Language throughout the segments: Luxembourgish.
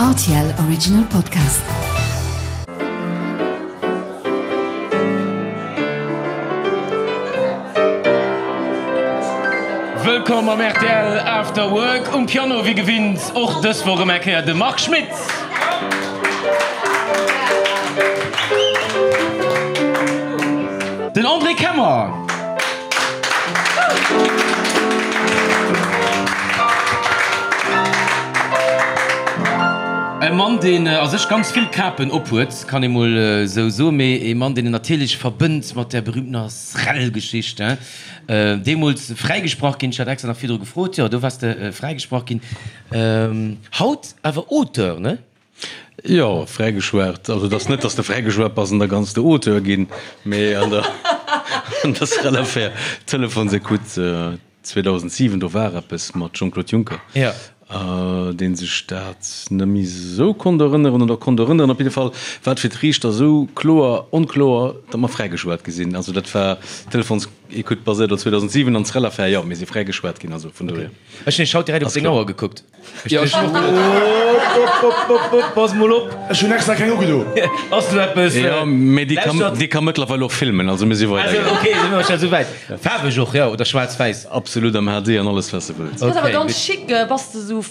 Rtl Original Podcast. Wëllkomm am rtl After Work. Um Piano wéi gewinnt och dës Woch erëm eng Kéier de Marc Schmitz. Den André Kemmer. E Mann, deen a sech ganz vill Kapen ophuet, kann ee mol esou soen, mee e Mann, deen een natierlech verbënnt mat där berühmtener Srel-Geschicht. Deemools fräigesprach ginn, ech hat extra nach virdru gefrot, jo, do waars de fräigesprach ginn. Haut awer Auteur, ne? Jo, fräigeschwat. Also et ass net, datt s de fräigeschwat bass an da kanns de Auteur ginn, mee an der an der Srel-Affär, Telefonsecoute 2007, do war eppes mat Jean-Claude Juncker, dee sech dat net méi esou konnt erënneren oder konnt erënneren. Op jidde Fall war et fir d'Riichter esou kloer onkloer, datt mer fräigeschwat gi sinn. Also dat war Telefonsecoute baséiert op 2007 an d'Srel-Affär, jo, mir si fräigeschwat ginn, also vun dohier. Ech hunn haut direkt op seng Auer gekuckt. Ja, ech hun och geduet. Op, op, op, pass mol op. Ech hun extra keng ugedo. Ass do eppes? Jo, mee déi kann, déi ka mëttlerweil och filmen, also mir si weider gaangen. Ok, si mir scho souwäit. Faarweg och, jo, oder schwaarz-wäiss? Absolut, am HD an alles wat s de wëlls. Dat ass awer ganz chic. Bass de sou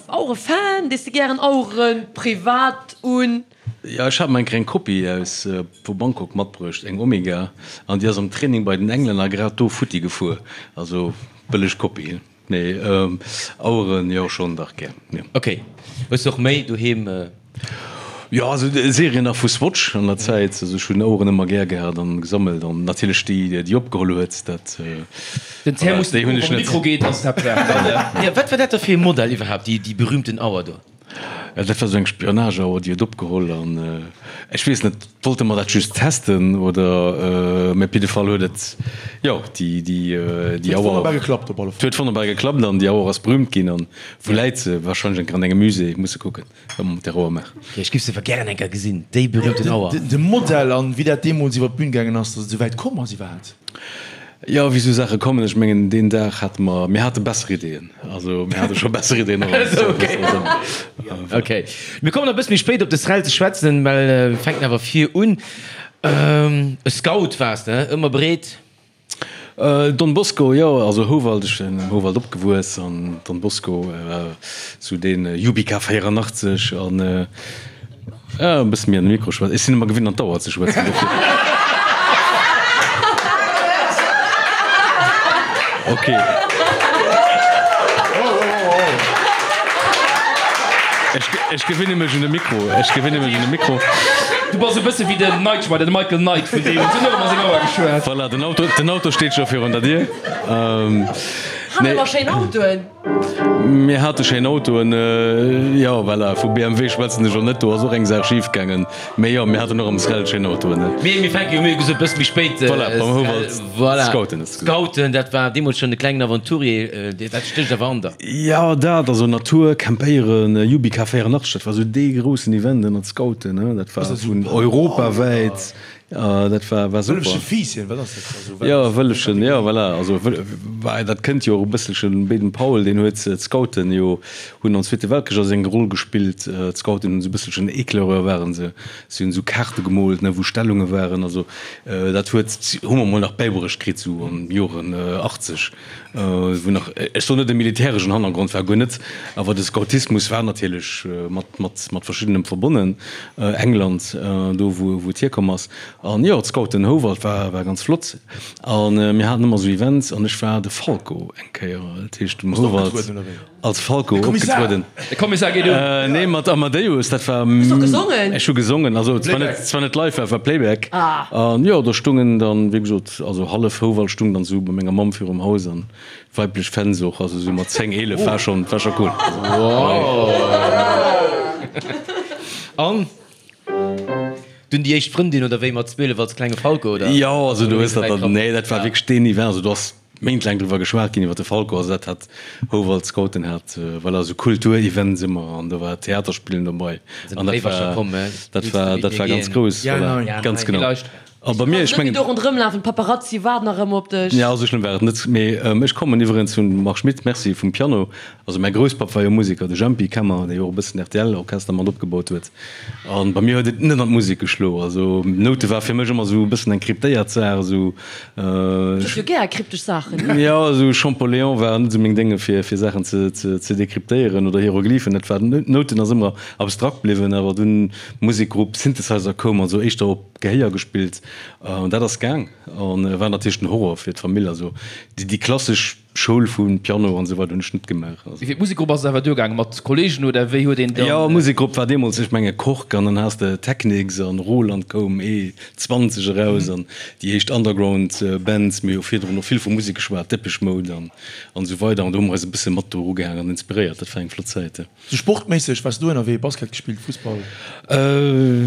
Auere-Fan? Dees de gären Aueren privat un? Jo, ech hat mer eng kleng Kopie aus vu Bangkok matbruecht, eng Omega, an déi ass am Training bei den Englänner grad do futti gefuer. Also bëlleg Kopie. Nee, Aueren jo schon dach gär, jo. Ok, hues de och méi doheem? Jo, also Serien nach vu Swatch an der Zäit, also ech hunn Aueren ëmmer gär gehat an gesammelt an natierlech déi déi opgeholl huet, dat Den Ter muss déi hunn ech net. Mikro geet ass dat. Jo, wat war dat da fir e Modell iwwerhaapt, déi déi berühmten Auer do? Dat war esou eng Spionageauer, déi huet opgeholl an ech weess net, wollte mer dat just testen oder, mä op jidde Fall huet et, jo, déi, déi, déi Auer. Huet wonnerbar geklappt op alle Fall. Huet wonnerbar geklappt an déi Auer ass berühmt ginn an wou läit se? Wahrscheinlech eng Kéier an engem Musée, musse kucken, wat mer mat där Auer maachen. Jo, ech giff se awer gären eng Kéier gesinn, déi berühmten Auer. De Modell an wéi dat deemools iwwer d'Bühn gaangen ass, datt et esou wäit komm ass iwwerhaapt. Jo, wéi esou Saache kommen. Ech mengen, deen Dag hate mer, mir hate besser Ideeën. Also mir hate scho besser Ideeën och als Ok. Ok. Mir kommen nach e bësse méi spéit op de Srel ze schwätzen, well mir fänken awer vir un. E Scout waars de, ëmmer breet? Don Bosco, jo, also Houwald, ech sinn am Houwald opgewuess an Don Bosco war esou dee Jubika 84 an E bësse méi an de Mikro schwätzen. Ech sinn ëmmer gewinnt an d'Auer ze schwätzen, dofir. Ok. Ech, ech gewinne mech un de Mikro. Ech gewinne mech un de Mikro. Du bass e bësse wéi den Knight Rider, de Michael Knight vun deem huet och ëmmer seng Auer geschwat. Voilà, den Auto, den Auto steet scho virun der Dier. Hat awer schéin Autoen. Mir hate schéin Autoen, jo, voilà, vu BMW schwätzen ech elo net, do ass och eng Saach schif gaangen, mee jo, mir haten och am Srel schéin Autoen. Mee mir fänke jo, mir hu gesot, e bësse méi spéit. Voilà, beim Houwald, voilà, Scouten hues de gesot. Scouten, dat war deemools schonn e klengen Aventurier, dat stécht awer an der. Jo, dat, also Natur, Campéieren, Jubika 84, dat war esou dee groussen Event ënnert Scouten, dat war vun europawäit. Dat war, war super. Wëllefche Fiisschen, wat ass dat? Also, wat Jo, Wëllefchen, jo, voilà. Also, wei, dat kënnt jo och e bësselchen. Baden Powell, deen huet d'Scouten jo, hunn am Zweete Weltkrich also eng Roll gespillt. D'Scouten hunn esou e bësselchen Éclaireur waren se. Si hunn esou Kaarte gemoolt, ne, wou Stellunge waren. Also, dat huet, hu mer mol nach bäibruecht kritt, esou an Joren 80, wou nach, ech soen net e militäreschen Hannergrond war, guer net, awer de Scoutismus war natierlech mat, mat, mat verschiddenem verbonnen. England, do wou et hierkomm ass. An jo, d'Scouten Houwald war war ganz flott. A mir haten ëmmer esou Events an ech war de Falco eng Kéier, dat heescht um Houwald als Falco opgetrueden. De Kommissar geet un! Nee, mat Amadeus, dat war. Hues du och gesongen? Ech hu gesongen, also zwar net, zwar net live, war Playback. An jo, do stungen dann, wéi gesot, also hallef Houwald stung dann esou bei menger Mamm virum Haus an Weiblech Fans och, also sou mat 10, 11 war schon, war schon cool. An dunn déi éischt Frëndin oder wéi mat 12 als klenge Falco oder? Jo, also du hues dat dann, nee dat war wierklech deen Event, also do ass méintlaang driwwer geschwat ginn iwwer de Falco, also dat hat Houwald Scouten hat, voilà, sou Kulturevents ëmmer an do war Theaterspillen dobei an dat war, dat war, dat war ganz grouss, voilà, ganz genau. A bei mir, ech mengen. Do ronderëm lafen, d'Paparazzi waarden nach ëmmer op dech. Jo, esou schlëmm war et net. Mee ech kommen iwwerens vum Marc Schmitt, merci, vum Piano. Also mäi Grousspapp war jo Museker, de Jempy Kemmer, dee jo och e bëssen RTL-Orchester mat opgebaut huet. A bei mir huet et net an d'Musek geschlo. Also Noute war fir mech ëmmer esou e bëssen eng kryptéiert Saach, esou. Du hues jo gär kryptesch Saachen, ne? Jo, esou Champollion war net esou meng Dénge fir fir Saachen ze ze dekryptéieren oder Hieroglyphen. Dat war, Nouten ass ëmmer abstrakt bliwwen. Awer dunn Musekgrupp, Synthesizer koum, also éischter op Gehéier gespillt. An dat ass gaang an war natierlech den Horror fir d'Famill. Also déi klassesch Schoul vu Piano an esou weider hunn ech net gemaach. Also. Fir d'Musekgrupp ass et awer duergaangen, mat Kollegen oder wéi huet een dann. Jo, Musekgrupp war deemools, ech menge Kork an dann has de Technics an Roland koum E 20 eraus an déi éischt Underground Bands. Mir hu virdrun och vill vu Musek geschwat, Depeche Mode an esou weider an do hu mer eis e bësse mat do erugehaangen an inspiréiert. Dat war eng flott Zäit. Sou sportméisseg, waars du ënnerwee? Basket gespillt, Fussball?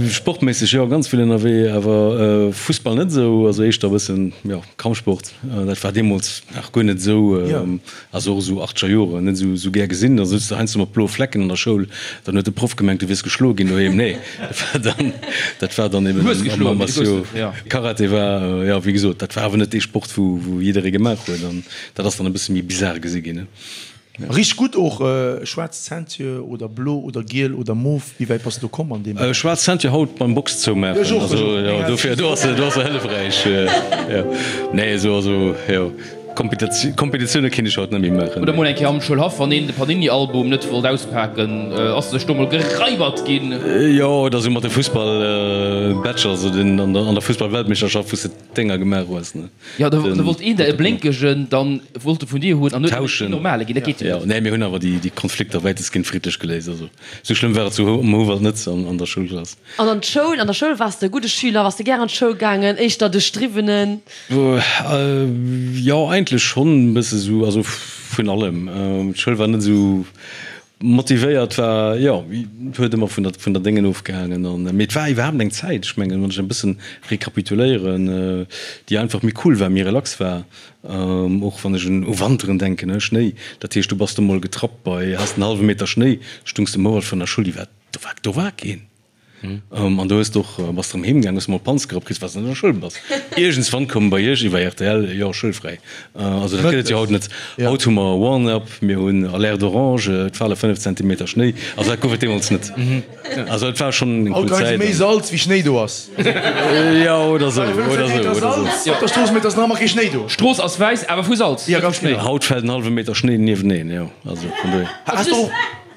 Sportméisseg jo, ganz vill ënnerwee, awer Fussball net esou, also éischter e bëssen, jo, Kampfsport. Dat war deemools nach guer net esou, also och esou achtscher Joren, net esou gär gesinn. Da souz de heiansdo mat bloe Flecken an der Schoul, dann huet de Proff gemengt, du wiers geschloe ginn doheem. Nee, dat war dann, dat war dann eben am Armatio. Karate war, jo, wéi gesot, dat war awer net dee Sport, wou jidderee gemaach huet an dat ass dann e bësse méi bizar gesi ginn. Richt gutt och. Schwaarz Ceinture oder blo oder giel oder mof, wéi wäit bass de do komm an deem Beräich? Schwaarz Ceinture haut beim Box zoumaachen, also jo dofir do ass se do ass se hëllefräich jo. Nee esou also jo Kompetitioune kinnt ech haut net méi maachen. Oder mol eng Kéier am Schoulhaff, wann een de Panini-Album net wollt auspaken, ass sech do mol gereibert ginn. Jo oder esou mat de Fussball-Badger, also den an der Fussball-Weltmeeschterschaft wou s de Dénger gemaach hues, ne? Jo, da wollt een der e blénkegen, dann wollt e vun dir hunn an huet en normale ginn. Dat geet jo net. Jo, nee, mir hunn awer déi Konflikter wäitestgehend friddlech geléist. Also sou schlëmm war et zu um Houwald net an der Schoulklass. An an d'Schoul, an der Schoul waars de e gudde Schüler? Waars de gär an d'Schoul gaangen, éischter de Striwwenen? Jo, eigentlech schonn e bësse sou, also vun allem. D'Schoul war net esou Motivéiert war, jo, huet ëmmer vun der, vun der Déngen ofgehaangen an, mee et war iwwerhaapt eng Zäit, ech mengen, wann ech e bëssen rekapituléieren, déi einfach méi cool war, méi relax war, och wann ech un u Wanteren denken, ne, Schnéi, dat heescht, du bass do mol getrappt bei, has en hallwe Meter Schnéi, stungs de Mouert vun der Schull, déi war, do war, do war keen. An do hues de och, bass de erëm heem gaang, hues mol Panz gerappt kritt, well s de net an der Schoul bass. Iergendswann koum bei iech iwwer rtl, jo, schoulfräi. Also dat gëtt et jo haut net. Haut hu mer Warn-up, mir hunn Alerte orange, et fale 5 Zentimeter Schnéi. Also dat gouf et deemools net. Also et war schonn eng cool Haut leie se Zäit. méi Salz wéi Schnéi do ass. Jo, oder esou, Fale 5 oder esou, Zentimeter oder esou. Salz op der Strooss, mee et ass nach ëmmer kee Schnéi do. D'Strooss ass wäiss, awer vu Salz, Ja, ganz Schnéi. genau. Haut fält en hallwe Meter Schnéi nieweneen, jo. Also vun dohier. Has de och,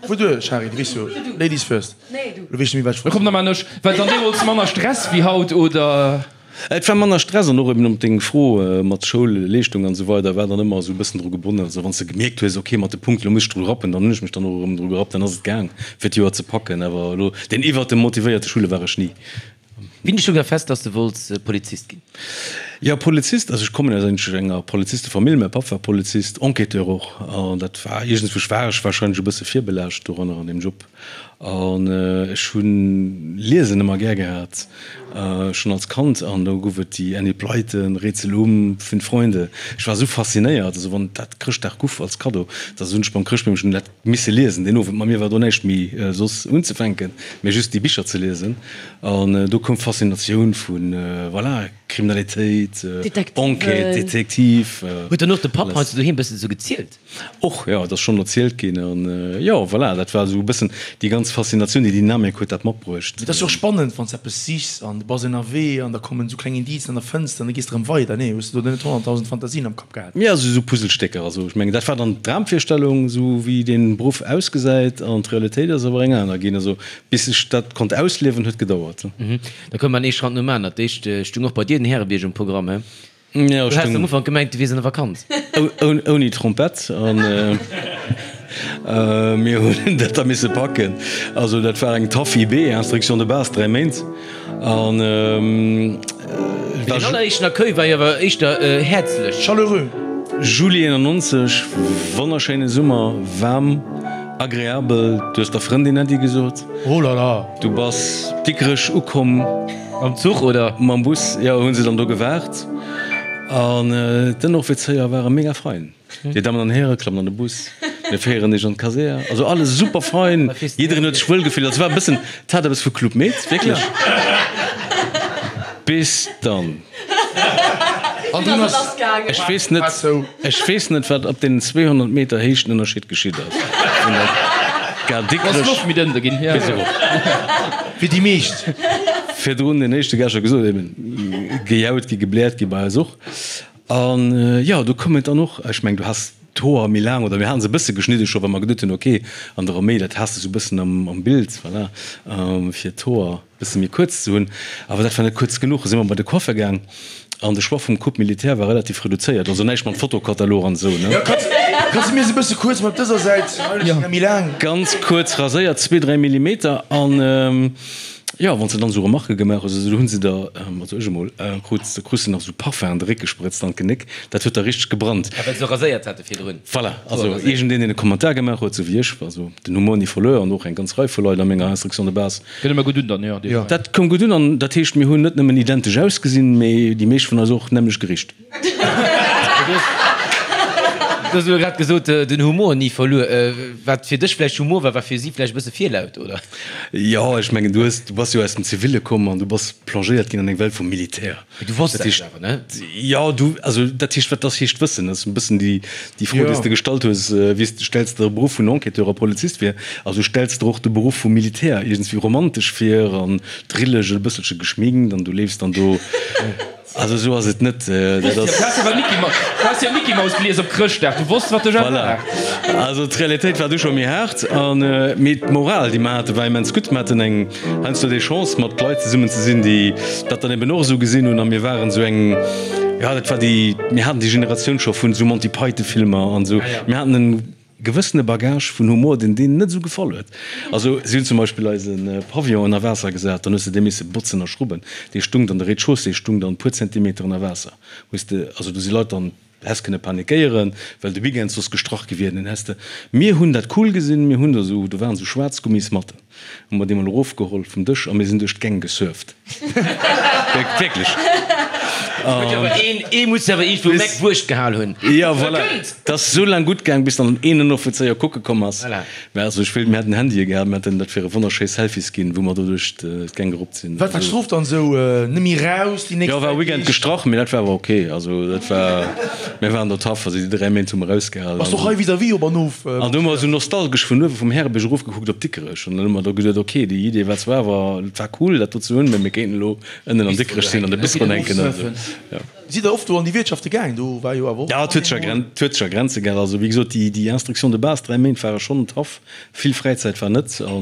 Fuer duer, Shari, du weess jo, Ladies first. Nee, du. Lo weess ech net méi, wat ech wollt Komm, da maan ech. War et dann deemools manner Stress wéi haut, oder? Et war manner Stress an och eben op deng Fro mat Schoulleeschtung an esou weider war dann ëmmer esou e bëssen dru gebonnen. Also wann s de gemierkt hues, ok mat de Punkten, elo muss ech dru rappen, dann hunn ech mech dann och erëm dru gerappt, dann ass et gaang fir d'Joer ze packen. Awer elo deen iwwert dem motivéierte Schüler war ech ni. Wéini stoung da fest, dass de wollts Polizist ginn? Jo, Polizist, also ech kommen aus enger Polizistefamill, mäi Papp war Polizist, Enquêteur och, an dat war iergendswousch war ech warscheinlech e bësse virbelaascht doranner an deem Job. An ech hunn Liesen ëmmer gär gehat, schonn als Kand. An do gouf et déi Enid Blyton, Rätsel um Fünf Freunde. Ech war esou faszinéiert, also wann dat Chrëschtdag guff als Kaddo, da sot ech beim Chrëschtbeemchen, hunn dat misse liesen deen Owend. Mat mir war do näischt méi soss unzefänken, mee just déi Bicher ze liesen. An do koum d'Faszinatioun vu, voilà, Kriminalitéit, Enquête, Detektiv. Huet dann och de Papp heiansdo doheem bëssen esou gezielt? Och, jo, et ass schonn erzielt ginn. An jo, voilà, dat war esou e bëssen déi ganz Faszinatioun, déi Dynamik huet dat matbruecht. Et ass jo och spannend, wann s de eppes sichs an du bass ënnerwee an da kommen esou kleng Indicen an da fënns de an da gees de erëm weider. Nee, hues de do net 100.000 Fantasien am Kapp gehat? Jo, esou Puzzlestécker. Also ech mengen, dat war dann d'Dramvirstellung, esou wéi dee Beruff ausgesäit, an d'Realitéit ass awer eng aner ginn. Also bis ech dat konnt ausliewen, huet gedauert. Da koum an ee Schratt nom aner. D'éischt stung och bei dir den Härebierg um Programm, he? Ja, Du has am Ufank gemengt, du wiers an der Vakanz. Ouni Trompett an mir hunn dat da misse packen. Also dat war eng tough IB, Instruction de base, 3 Méint. An Mee den alleréischten Accueil war jo awer éischter häerzlech. Chaleureux. Juli 91, wonnerschéine Summer, waarm, agreabel. Du hues der Frëndin Äddi gesot. Oh là là! Du bass Dikrech ukomm. Mam Zuch oder? Mam Bus, jo, hu se dann do gewaart. An d'Ënneroffizéier ware mega fein. Dir Dammen an Häre, klammt an de Bus, mir féieren iech an d'Kasär. Also alles super fein, jiddereen huet sech wuel gefillt. Also war e bëssen, et hat eppes vu Club Med, wierklech. Bis dann. An dunn ass. Ech weess net, ech weess net, wat op deenen 200 Meter Héichtenënnerscheed geschitt ass. Vun der Gare Dikrech bis erop. Fir déi meescht. Virdrun den éischte Gast scho gesot, eben gejaut gi, gebläert gi bei eis och. An jo, do koum et dann och, ech mengen, du has d'Hoer méi laang, oder mir haten se e bësse geschnidde scho, well mer geduet hunn, ok, an der Arméi, dat has de sou e bëssen am Bild, voilà, fir d'Hoer. Bësse méi kuerz ze hunn, awer dat war net kuerz genuch. Si mer bei de Coiffer gaang an de Choix vum Coupe militaire war relativ reduzéiert, also näischt mat Fotokatalog an esou, ne? Jo, kanns de mir se bësse kuerz mat dëser Säit, hei ass méi laang. Ganz kuerz raséiert, zwee, dräi Millimeter an jo, wann s de dann esou Remarquë gemaach hues, also do hu se der, also ech emol, krut, da krus de nach esou Parfum an de Réck gesprëtzt an d'Genéck, dat huet da richteg gebrannt. Ah, well se raséiert hate virdrun? Voilà, also iergendeen, deen e Kommentar gemaach huet, esou wéi ech, also den Humor ni verluer an och eng ganz Rei vu Leit a menger Instruction de base, Gëtt ëmmer gutt un dann, jo. Jo. Dat koum gutt un an dat heescht, mir hunn net nëmmen identesch ausgesinn, mee déi meescht vun eis och nämmlecht gericht. Du hues elo grad gesot, den Humor ni verluer. Wat fir dech vläicht Humor war, war fir si vläicht e bësse virlaut, oder? Jo, ech mengen, du hues, du bass jo aus dem Ziville komm an du bass plongéiert ginn an eng Welt vum Militär. Mee du wosst dat awer, ne? Jo, du, also dat heescht, wat ass heescht wëssen? Dat ass e bëssen déi, déi Fro, déi s de gestallt hues, wéi s de stells der e Beruff vun Enquêteur a Polizist vir? Also stells der och de Beruff vum Militär iergendswéi romantesch vir an drilleg, e bësselche geschminkt an du leefs dann do. Also esou ass et net. Dat ass. Du has awer Mickey Mouse, du has jo Mickey Mouse gelies op Chrëschtdag, du wosst wat dech erwaart. Voilà. Also d'Realitéit war du scho méi haart an, mee d'Moral, déi mer haten, war immens gutt. Mer haten eng. Heiansdo déi Chance mat Leit zesummen ze sinn, déi dat dann eben och esou gesinn hunn. A mir waren esou eng, jo dat war déi, mir haten déi Generatioun scho vun esou Monty Python Filmer an esou. Mir haten en gewëssene Bagage vun Humor, deen deenen net esou gefall huet. Also si hunn zum Beispill eise Pavillon ënner Waasser gesat, dann hues de dee misse botzen a schrubben. Dee stung dann, de Rez-de-chaussée stung dann e puer Zentimeter ënner Waasser. Hues de, also do si Leit dann Häss kënne panikéieren, well de Weekend soss gestrach gi wier. Den häss de, mir hunn dat cool gesinn, mir hunn do esou, do waren esou schwaarz Gummismatten, hu mer déi mol erofgeholl vum Dësch a mir sinn duerch d'Gäng gesurft. Wierklech. Ee muss awer iergendwou Meck Wurscht gehal hunn. Jo, voilà. Et ass esou laang gutt gaang, bis dann een Ënneroffizéier kucke komm ass. Mä also ech wéilt, mir hätten Handye gehat, mir hätten dat fir e wonnerschéi Selfies ginn, wou mer do duerch d'Gäng geruppt sinn. Wat war d'Strof dann esou? Net méi raus déi nächst Jo, war e Weekend gestrach, mee dat war awer ok. Also dat war, mir waren do tough, also déi 3 Méint hu mer ausgehalen. Bass och hei vis-à-vis op an of? An do hu mer esou nostalgesch vun uewe vum Härebierg erofgekuckt op Dikrech an dann hu mer do geduet, ok, déi Idee war zwar awer, et war cool dat do ze hunn, mee mir kéinten elo ënnen an Dikrech sinn an de Bistro hänken an esou, jo. Sidd der oft do an déi Wiertschafte gaang? Do war jo awer och. Ja, et huet sech a et huet sech a Grenze gehal. Also wéi gesot, déi déi Instruction de base, 3 Méint ware schonn tough. Vill Fräizäit war net. A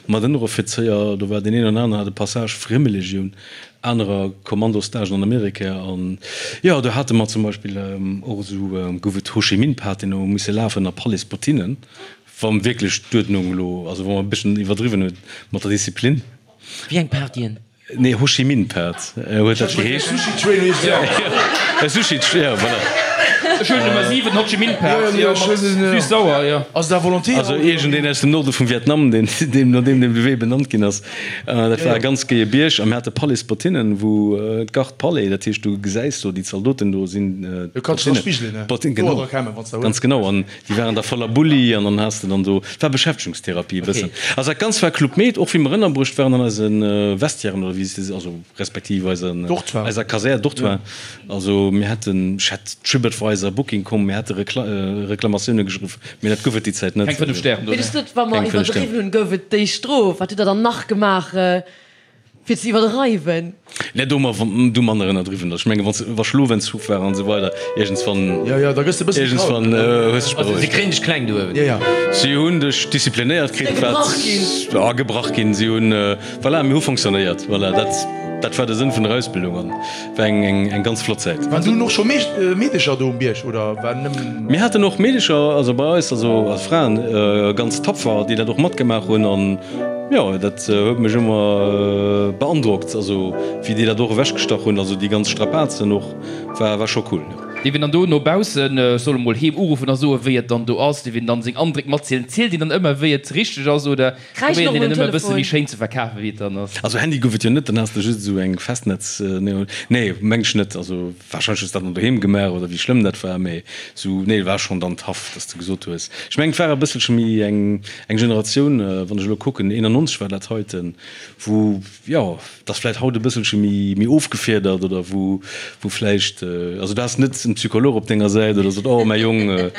mat Ënneroffizéier, do war deen een oder aneren hat e Passage Friemelegioun, anerer Kommandostagen an Amerika. An jo, do hate mer zum Beispill och esou, gouf et Ho Chi Minh-Paten, wou mer musse lafen a Palais-Bottinen, wa wierklech d'Uerdnung elo, also wa mer e bësschen iwwerdriwwen hunn mat der Disziplin. Wéi eng Partyen? Nee, Ho Chi Minh Pad huet dat geheescht. Sushi Train heescht et. E Sushi Train, ja, voilà. Ech hunn Nummer 7, Ho Chi Minh Pad, jo, mat süß-sauer, jo. Ass et à volonté? Also iergendeen aus dem Norde vum Vietnam, deen, deem, no deem de Wee benannt ginn ass. Dat war e ganz géie Bierg a mir hate Palais Bottinen, wou d'Garde Palais, dat heescht, du gesäis do déi Zaldoten do sinn. Du kanns dech dra spigelen, ne? Bottinen, genau. Ganz genau. An Déi waren da voller Bulli an dann has de dann do, et war Beschäftegungstherapie e bëssen. Also dat Ganzt war Club Med, och wéi mer ënnerbruecht waren an eise Vestiairen oder wéi se, also respektiv eisen, eiser Kasär, Dortoir. Also mir hätten, ech hätt Tripadvisor, Booking com, mir hätte Reklamatioune geschriwwen, mee dat gouf et déi Zäit net. Keng 5 Stären do, ne? Mee du sot, wa mer iwwerdriwwen hunn, gouf et déi Strof. Wat hutt der dann nach gemaach? Fir ze iwwerdreiwen. Net do mer du manner ënnerdriwwen ass. Ech mengen wann wa Schlofentzuch war an esou weider iergendswann. Jo jo da gëss de bëssen iergendswann hues dech berouegt. Si kréien dech kleng do uewen. Jo jo. Si hunn dech disziplinéiert kritt wat. Gebrach ginn. Ja gebrach ginn. Si hunn voilà mir hu fonctionnéiert voilà dat dat war de Sënn vun der Ausbildung an war eng eng eng ganz flott Zäit. Waren dunn och scho Meedecher do um Bierg oder war nëmmen. Mir haten och Meedecher also bei eis also als Fraen ganz tapfer déi dat och matgemaach hunn an. Jo, dat huet mech ëmmer beandrockt, also wéi déi dat och ewechgestach hunn, also déi ganz Strapazen och, war war scho cool. Dierf een dann do no baussen, ech soll emol heem uruffen a soen, wéi et dann do ass? Dierf een dann seng Andréck matzielen? Zielt een dann ëmmer, wéi et richteg ass oder Kräischen probéiert och een um et ëmmer e bësse Telefon. méi schéin ze verkafen, wéi et dann ass? Also Handy gouf et jo net, dann has de just esou eng Festnetz, nee meng ech net, also warscheinlech hues de dat dann doheem gemaach oder wéi schlëmm dat war, mee esou nee war schonn dann tough, dass de gesot hues, ech mengen et war e bësselche méi eng eng Generatioun, wann ech elo kucken, 91 war dat heiten, wou jo, et ass vläicht haut e bësselche méi méi ofgefiedert oder wou wou vläicht, also du has net en Psycholog op denger Säit oder sot, oh mäi Jong,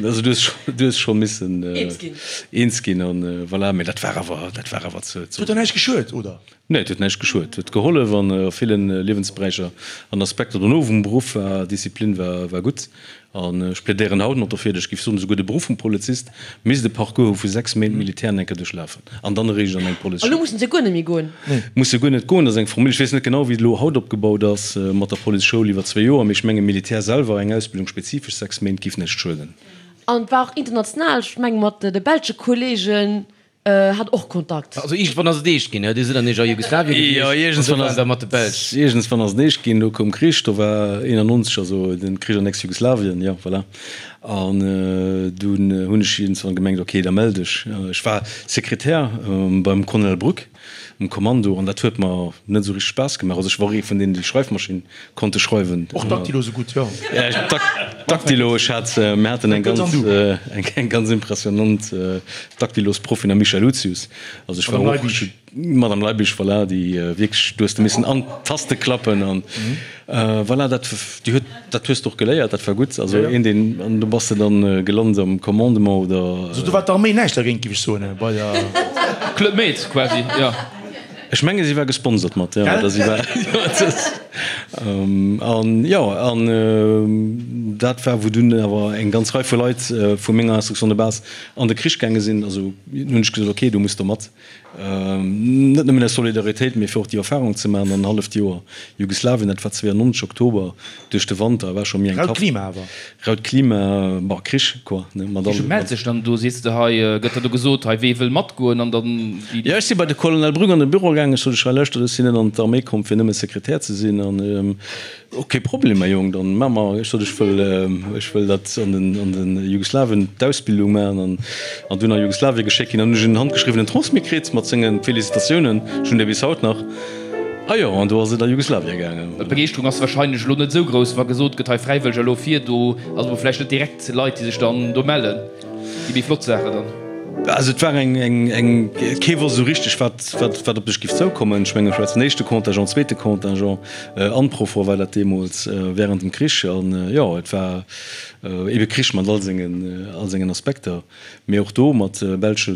also du hues scho du hues scho missen Eens ginn. eens ginn an voilà, mee dat war awer dat war awer ze Et huet der näischt geschuet, oder? Nee, et huet näischt geschuet, huet gehollef an a villen Liewensberäicher an Aspekter dono vum Beruff war Disziplin war war gutt. An ech plädéieren haut nach dofir, ech géif soen, esouguer de Beruff vum Polizist misst e Parcours hu vu 6 Méint Militär an enker duerchlafen an dann eréischt an eng Elo Policeschoul. mussen se guer net méi goen. Muss se guer net goen. Dat ass eng Formule, ech weess net genau, wéi et elo haut opgebaut ass mat der Policeschoul iwwer zwee Joer, mee ech menge Militär selwer, eng Ausbildung spezifesch 6 Méint, géif näischt schueden. An et war och international, ech menge mat de belsche Kollegen Hat och Kontakt. Also iergendwann ass et eescht ginn, Dir sidd an Iech a Jugoslawien gewiescht an do waren der mat de Belsch. Iergendswann ass et eescht ginn, do koum Krich, do war 91, also den Krich an Ex-Jugoslawien, jo voilà. An dunn hunn ech iergendswann gemengt, ok, da mell dech. Ech war Sekretär beim Colonel Brück. Um Kommando, an dat huet mer net esou richteg Spaass gemaach. Also ech war och ee vun deenen, déi Schreifmaschinn konnte schreiwen. Och Daktilo sou gutt, jo. Daktilo, ech hat, mir haten eng ganz, eng ganz impressionant Daktilosproffin, am Michèle Lucius. Also ech war och. Madame Leibig. Madame Leibig, voilà, déi wierklech, du hues de missen an d'Taste klappen an voilà, dat, déi huet, dat hues de och geléiert, dat war gutt. Also een, deen, an do bass de dann gelant am Commandement oder. Also do war d'Arméi näischt dergéint, géif ech soen, bei der. Club Med quasi, jo. Ech menge si war gesponsert mat, jo, oder si war, jo, et ass, an jo, an dat war, wou dunn awer eng ganz Rei vu Leit vu menger Instruction de base an de Krich gaange sinn. Also hunn ech gesot, okay, du muss do mat. Net nëmmen aus Solidaritéit, mee fir och déi Erfahrung ze maachen. An en halleft Joer Jugoslawien, dat war 92 Oktober, duerch de Wanter, war scho méi eng Raut tough. Klima awer. Raut Klima, bon, Krich quoi, ne, mat Wéi allem. mellt sech dann do? Sees de hei, gëtt da do gesot, hei wee wëll matgoen an dann déi. Jo, ech si bei de Colonel Brück an de Büro gaangen. Ech sot, ech hei lauschtert, ech sinn net an d'Arméi komm fir nëmme Sekretär ze sinn an Och kee Problem, mäi Jong, dann maache mer. Ech sot, ech wëll, ech wëll dat an den, an den Jugoslawien d'Ausbildung maachen an, an dunn a Jugoslawien geschéckt ginn. Dann hunn ech en handgeschriwwenen Transmis kritt mat senge Félicitatiounen. Ech hunn dee bis haut nach. A jo, an do ass et a Jugoslawien gaangen. D'Begeeschterung ass wahrscheinlech elo net esou grouss, wa gesot gëtt, hei Fräiwëlleger elo vir. Do ass elo vläicht net direkt Leit, déi sech dann do mellen. Déi méi flott Saache dann. Also et war eng, eng, eng, kee wosst esou richteg, wat, wat, wat op dech giff zoukommen. Ech mengen, ech war den éischte Contingent, zweete Contingent, Unprofor war dat deemools während dem Krich. An jo, et war ebe Krich mat all sengen, all sengen Aspekter. Mee och do mat belsche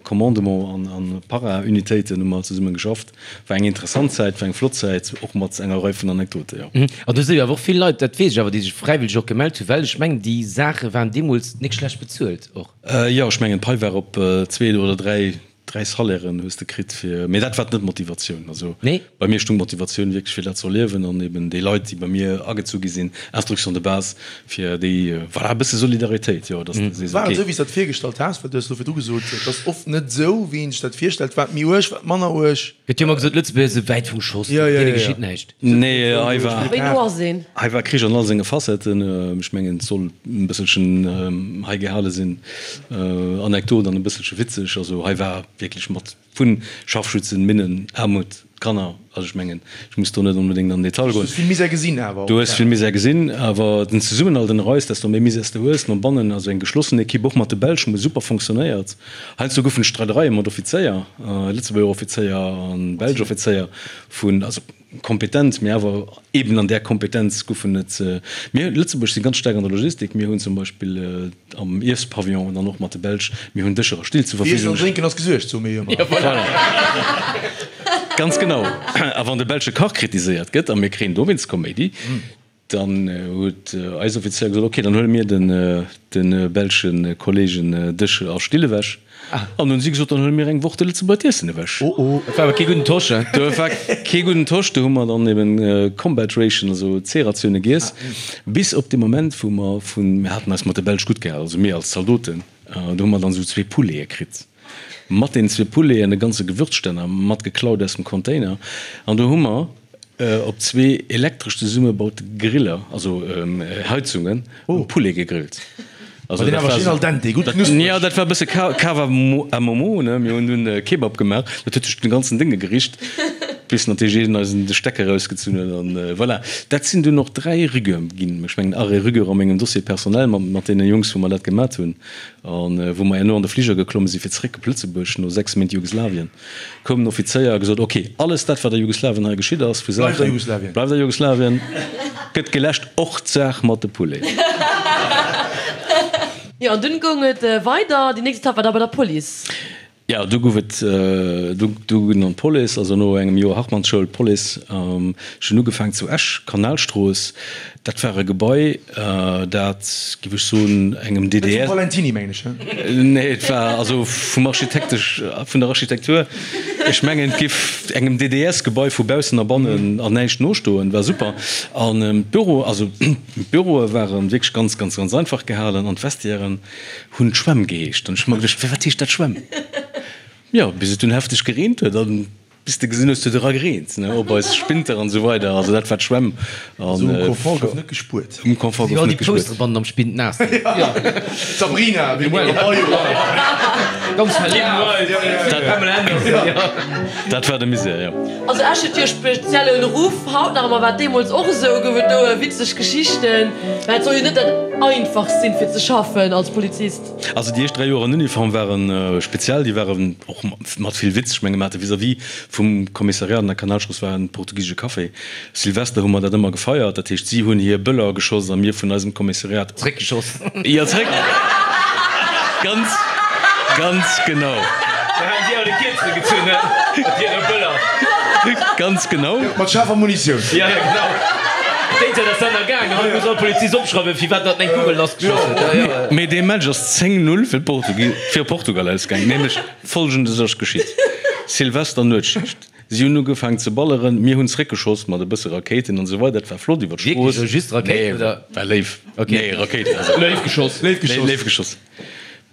Commandement an, an Para-Unitéiten hu mer zesumme geschafft. War eng interessant Zäit, war eng flott Zäit, och mat enger Rei vun Anekdote, jo. An do si jo awer och vill Leit, dat weess ech awer, déi sech fräiwëlleg och gemellt hunn, well ech mengen, déi Saache waren deemools nik schlecht bezuelt och. Jo, ech mengen d'Pai war op zwee oder dräi, dräi Salairen hues de kritt fir, mee dat war net d'Motivatioun. Also Nee. bei mir stung d'Motivatioun wierklech fir dat ze erliewen an eben déi Leit, déi bei mir agezu gi sinn, Instruction de base, fir déi, voilà, e bësse Solidaritéit, jo, dass de sees, War et okay. esou, wéi s de dat virgestallt has? Well du hues elo virdru gesot, et ass oft net esou, wéi een sech dat virstellt. War et méi uerg, war et manner uerg? Gëtt jo ëmmer gesot, Lëtzebuerger si wäit vum Schoss, Ja, ja, deene ja, ja. geschitt näischt. Nee, hei war, Wéi no ass een? hei war Krich an all senge Facetten. Ech mengen, et soll e bësselchen hei gehale sinn, Anekdot an e bësselche witzeg. Also hei war wierklech mat vu Scharfschützen, Minnen, Aarmut, Kanner. Also ech mengen, ech muss do net onbedéngt an den Detail Du goen. hues vill Misär gesinn awer Du och. hues vill Misär gesinn, awer den Zesummenhalt ënner eis, desto méi Misär s de hues no bannen, also eng geschlossen Equipe, och mat de Belsch, hu super fonctionnéiert. Heiansdo goufen et Streidereie mat Offizéier, Lëtzebuerger Offizéier an belsch Offizéier, vun, also kompetent, mee awer eben an där Kompetenz goufen et, mir Lëtzebuerg si ganz staark an der Logistik, mir hunn zum Beispill am Iessepavillon dann och mat de Belsch, mir hunn Dëscher a Still zur Fir Iessen an Verfügung. Drénken ass gesuergt, soe mir jo ëmmer. Voilà. Ganz genau. A wann de belsche Kach kritiséiert gëtt, a mir kréien dowéinst Koméidi, Dann huet eis Offizéier gesot, ok, dann huele mir de belsche Kollegen Dësch a Still ewech. An hunn si gesot, dann huele mir eng Woch de Lëtzebuerger d'Iessen ewech. Dat war awer kee gudden Tosch, he? Dat war kee gudden Tosch. Do hu mer dann eben Combat Ration, also C-Ratioune giess, bis op dee Moment, wou mer vun, mir haten eis mat de Belsch gutt gehal, also mir als Zaldoten, do hu mer dann esou zwee Poulete kritt, mat deenen zwee Pouleten e ganze Gewürzstänner mat geklaut aus dem Container. An do hu mer. Op zwee elektresch zesummebaute Griller, also Heizungen, e Poulet gegrillt. Also dat war al dente, gutt knuspreg. Jo, dat war e bësse Cava à Momo, ne? Mir hunn dunn Kebab gemaach, dat huet sech den ganzen Dénge gericht, bis natierlech een eis de Stecker erausgezunn huet an voilà. Dat sinn dunn och 3 Rigueur ginn, ech mengen Arrêt Rigueur a mengem Dossier personnel mat deene Jungs, wou mer dat gemat hunn an wou mer herno an de Fliger geklomme sinn, fir zeréck op Lëtzebuerg no 6 Méint Jugoslawien. Koum den Offizéier a gesot, Ok, alles dat, wat a Jugoslawien hei geschitt ass, vu Saachen, bleift a Jugoslawien, gëtt geläscht, och d'Saach mat de Pouleten. Jo, an dunn goung et weider. Déi nächst Etapp war da bei der Police. Jo, du gouf et, du dunn an d'Police, also no engem Joer Hartmannsschoul, d'Police. Ech hunn ugefaangen zu Esch, Kanalstrooss. Dat war e Gebai, dat, géif ech soen, engem DDR. Dat vum Valentiny, mengen ech, he? Nee, et war also vum Architektesch, vun der Architektur, ech mengen, et géif engem DDS-Gebai vu baussen a bannen an näischt nostoen. War super. An d'Büro, also d'Büroe ware wierklech ganz, ganz, ganz einfach gehalen an d'Vestiairen hunn d'Schwämm geheescht. An ech hu mer geduecht, Firwat heescht dat Schwämm? Jo, bis et dunn hefteg gereent huet an Bis de gesinn hues, huet era gereent, ne, op eis Spinter an esou weider. Also dat war d'Schwämm. An um Confort gouf net gespuert. Um Confort gouf net gespuert. Déi Poussebannen am Spind naass ginn. D'Sabrina, wéi mir Ganz verlaf. Dat war de Misär, jo. Also Esch huet jo e speziellen Ruff, haut nach ëmmer, war et deemools och esou? Gouf et do witzeg Geschichten? Well et soll jo net dat einfachst sinn, fir ze schaffen als Polizist. Also déi éischt 3 Joer an Uniform ware speziell, déi waren och mat vill Witz. Ech menge mer hate vis-à-vis vum Kommissariat an der Kanalstrooss war en portugisesche Café. Silvester hu mer dat ëmmer gefeiert, dat heescht si hunn hir Bëller geschoss a mir vun eisem Kommissariat. Zréckgeschoss. Jo, zréck. Ganz, ganz genau. Da haten si all de Kierzele gezunn, he, mat hire Bëller. Ganz genau. Mat schaarfer Munitioun. Jo, jo, genau. Déi Zäit ass dat nach gaangen. Haut muss all Polizist opschreiwen, firwat datt en eng Kugel lassgeschoss huet. Jo, jo. Mee dee Match ass 10, 0 fir fir Portugal ausgaangen. Nämlech Folgendes ass geschitt, Silvester Nuetsschicht, si hunn ugefaangen ze balleren, mir hunn zréckgeschoss mat e bësse Rakéiten an esou weider, et war flott iwwer d'Strooss. Wierklech? Just Rakéiten oder? Nee, war léif. Nee, Rakéiten, also. Léif geschoss. Léif geschoss. Léif geschoss.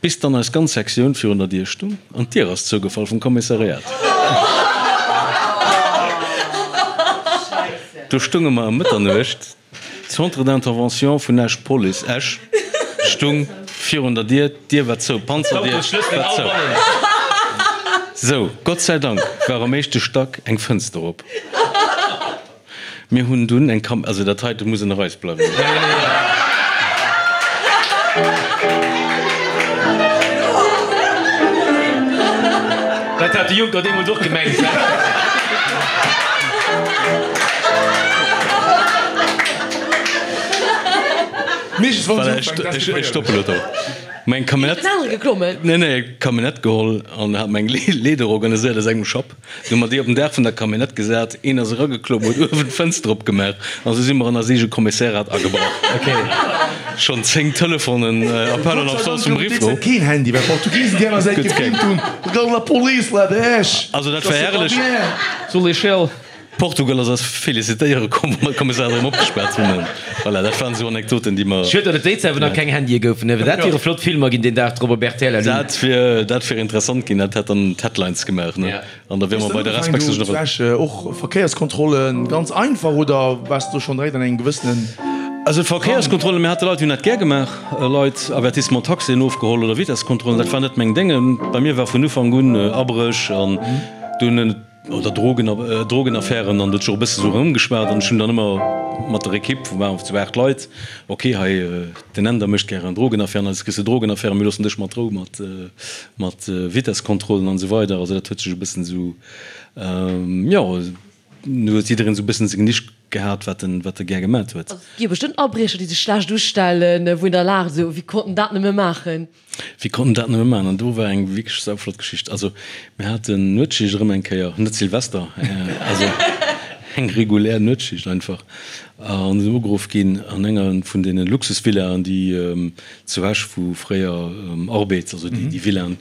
Bis dann eis ganz Sektioun virun der Dier stung an d'Dier ass zougefall vum Kommissariat. Do stunge mer ëm Mëtternuecht. D'Centre d'intervention vun Esch, Police Esch, stung virun der Dier, d'Dier war zou, d'Panzerdier war zou. Sou, Gott sei Dank war am éischte Stack eng Fënster op. Mir hunn dunn eng Kam, also dat heite muss ënner eis bleiwen. Dat hat de Juncker deemools och gemengt. Voilà, ech stoppen elo do. Mer eng Camionnette, nee, nee, Camionnette geholl an hat mer eng Leeder organiséiert aus engem Schapp. Du hu mer déi op den Daach vun der Camionnette gesat, een ass erageklomm, huet uewen d'Fënster opgemaach an esou si mer an eis eege Kommissariat agebrach. Schonn 10 Telefonen, Appel en absence vum Riffo. Keen Handy, well d'Portugisen déi aner Säit gefilmt hunn, La police là de Esch. Also dat war herrlech. Sur l'échelle. Portugal ass eis felicitéiere komm, wou mer d'Kommissariat erëm opgespaart hunn. Voilà, dat waren esou Anekdoten, déi mer. Schued, datt et déi Zäit wou nach keng Handye goufen, well dat wiere flott Filmer ginn deen Dag drop op rtl. Dat wier, dat wier interessant ginn, dat hätt dann d'Headlines gemaach, ne? An da wiere mer bei der Respect Hues du ugefaangen do zu Esch och Verkéierskontrollen ganz einfach oder waars du do schonn direkt an engem gewëssenen. Also Verkéierskontrollen, mir hate Leit, déi hunn dat gär gemaach, Leit Avertissement Taxien ofgeholl oder Vitesskontrollen, dat war net meng Dénge. Bei mir war vun Ufank un Abréch an dunn. Oder Drogen, Drogenaffären an dat huet sech och e bësse sou erëmgeschwat an ech hunn dann ëmmer mat der Ekipp, wou waren zu 8 Leit, ok hei den Änder mécht gären Drogenaffären, eis kriss de Drogenaffären, mir loossen dech mat Rou mat mat Vitesskontrollen an esou weider. Also dat huet sech e bëssen esou, jo, do huet jiddereen esou e bëssen seng Nisch gehat, wat en wat e gär gemat huet. Also et gi jo bestëmmt Abriecher déi sech schlecht ustellen, wou een da laacht esou, wéi konnt en dat nëmme maachen? Wéi konnt en dat nëmme maachen? An do war eng wierklech sauflott Geschicht. Also mir haten Nuetsschicht erëm eng Kéier, net Silvester, also eng regulär Nuetsschicht einfach, an sinn ugeruff ginn an enger vun deene Luxusvillaen, déi zu Esch, wou fréier Arbed, also déi Villaen,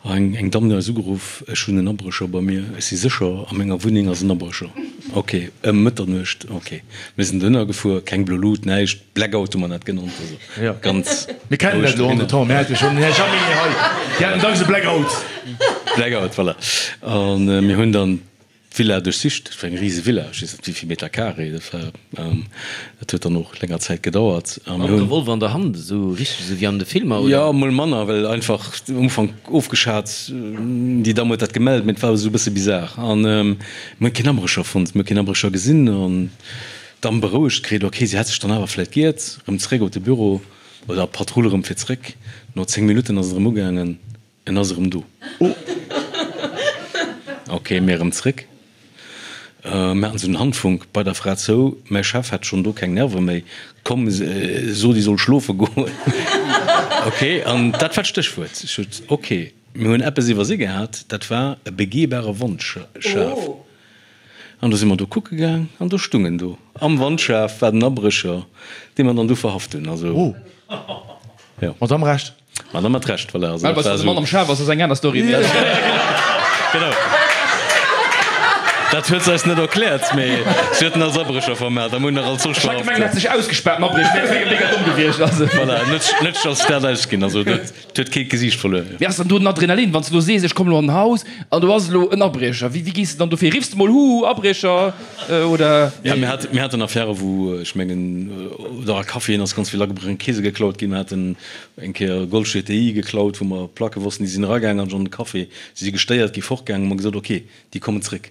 Eng eng Damm huet eis ugeruff, Ech hunn en Abrécher bei mir, ech si sécher, a menger Wunneng ass en Abrécher. Ok, ëm Mëtternuecht, ok. Mir sinn dohinner gefuer, keng blo Lut, näischt, Blackout hu mer dat genannt, also ganz Mir kennen dat elo entretemps, mir hate schonn den Här Jaminet hei, déi haten dacks e Blackout. Blackout, voilà. A mir hunn dann. D'Villa duerchsicht. Dat war eng rise Villa, ech weess net wéi vill Meter carré dat war. Dat huet dann och länger Zäit gedauert. Mam Revolver an der Hand, esou richteg esou wéi an de Filmer, oder? Jo, mol manner, well einfach um Ufank ofgeschat, déi Damm huet dat gemellt, mee et war esou e bësse bizar. An mir hunn keen Abrécher fonnt, mir hu keen Abrécher gesinn. An d'Damm berouegt kritt, ok, si hätt sech dann awer vläit giert, erëm zeréck op de Büro oder op d'Patrull erëm fir zeréck. No 10 Minutten ass et erëm ugaangen. En ass erëm do. Ok, mir erëm zréck. Mir haten esou den Handfunk bei der Fra zou. Mäi Chef hat schonn do keng Nerve méi. Komm, so déi soll schlofe goen. Ok, an dat war d'Stéchwuert. Ech sot, ok, mir hunn eppes iwwersi gehat, dat war e begehbare Wandschaf. An du si mer do kucke gaang an do stung en do am Wandschaf, war den Abrécher, dee mer dann du verhaft hunn. Also, jo. Mat am Recht. Ma dann mat Recht, voilà. Also, dat war de Mann am Schaf ass, ass eng aner Story. Genau. Dat huet se eis net erkläert, mee si huet en als Abrécher vermellt a mir hunn nach als solch verhaft. Ech hat gemengt, en hätt sech ausgespaart, den Abrécher, mee et wier mega domm gewiescht. Also. Voilà, net, net als dat ausginn. Also dat huet kee d'Gesiicht verluer. Wéi ass dann do den Adrenalin, wann s de elo sees, ech kommen elo an den Haus an do ass elo en Abriecher? Wéi, wéi gees de dann dofir? Riffs de mol, Huhu, Abriecher? Oder? Ja, mir haten, mir haten Affäre wou, ech mengen, oder a Caféen ass ganz vill agebrach, Keese geklaut ginn. Mir haten eng Kéier e Golf GTI geklaut, wou mer Placke wossten, déi sinn eragaangen an an de Café, si si gestéiert gi fortgaangen, hu mer gesot, ok, déi kommen zréck.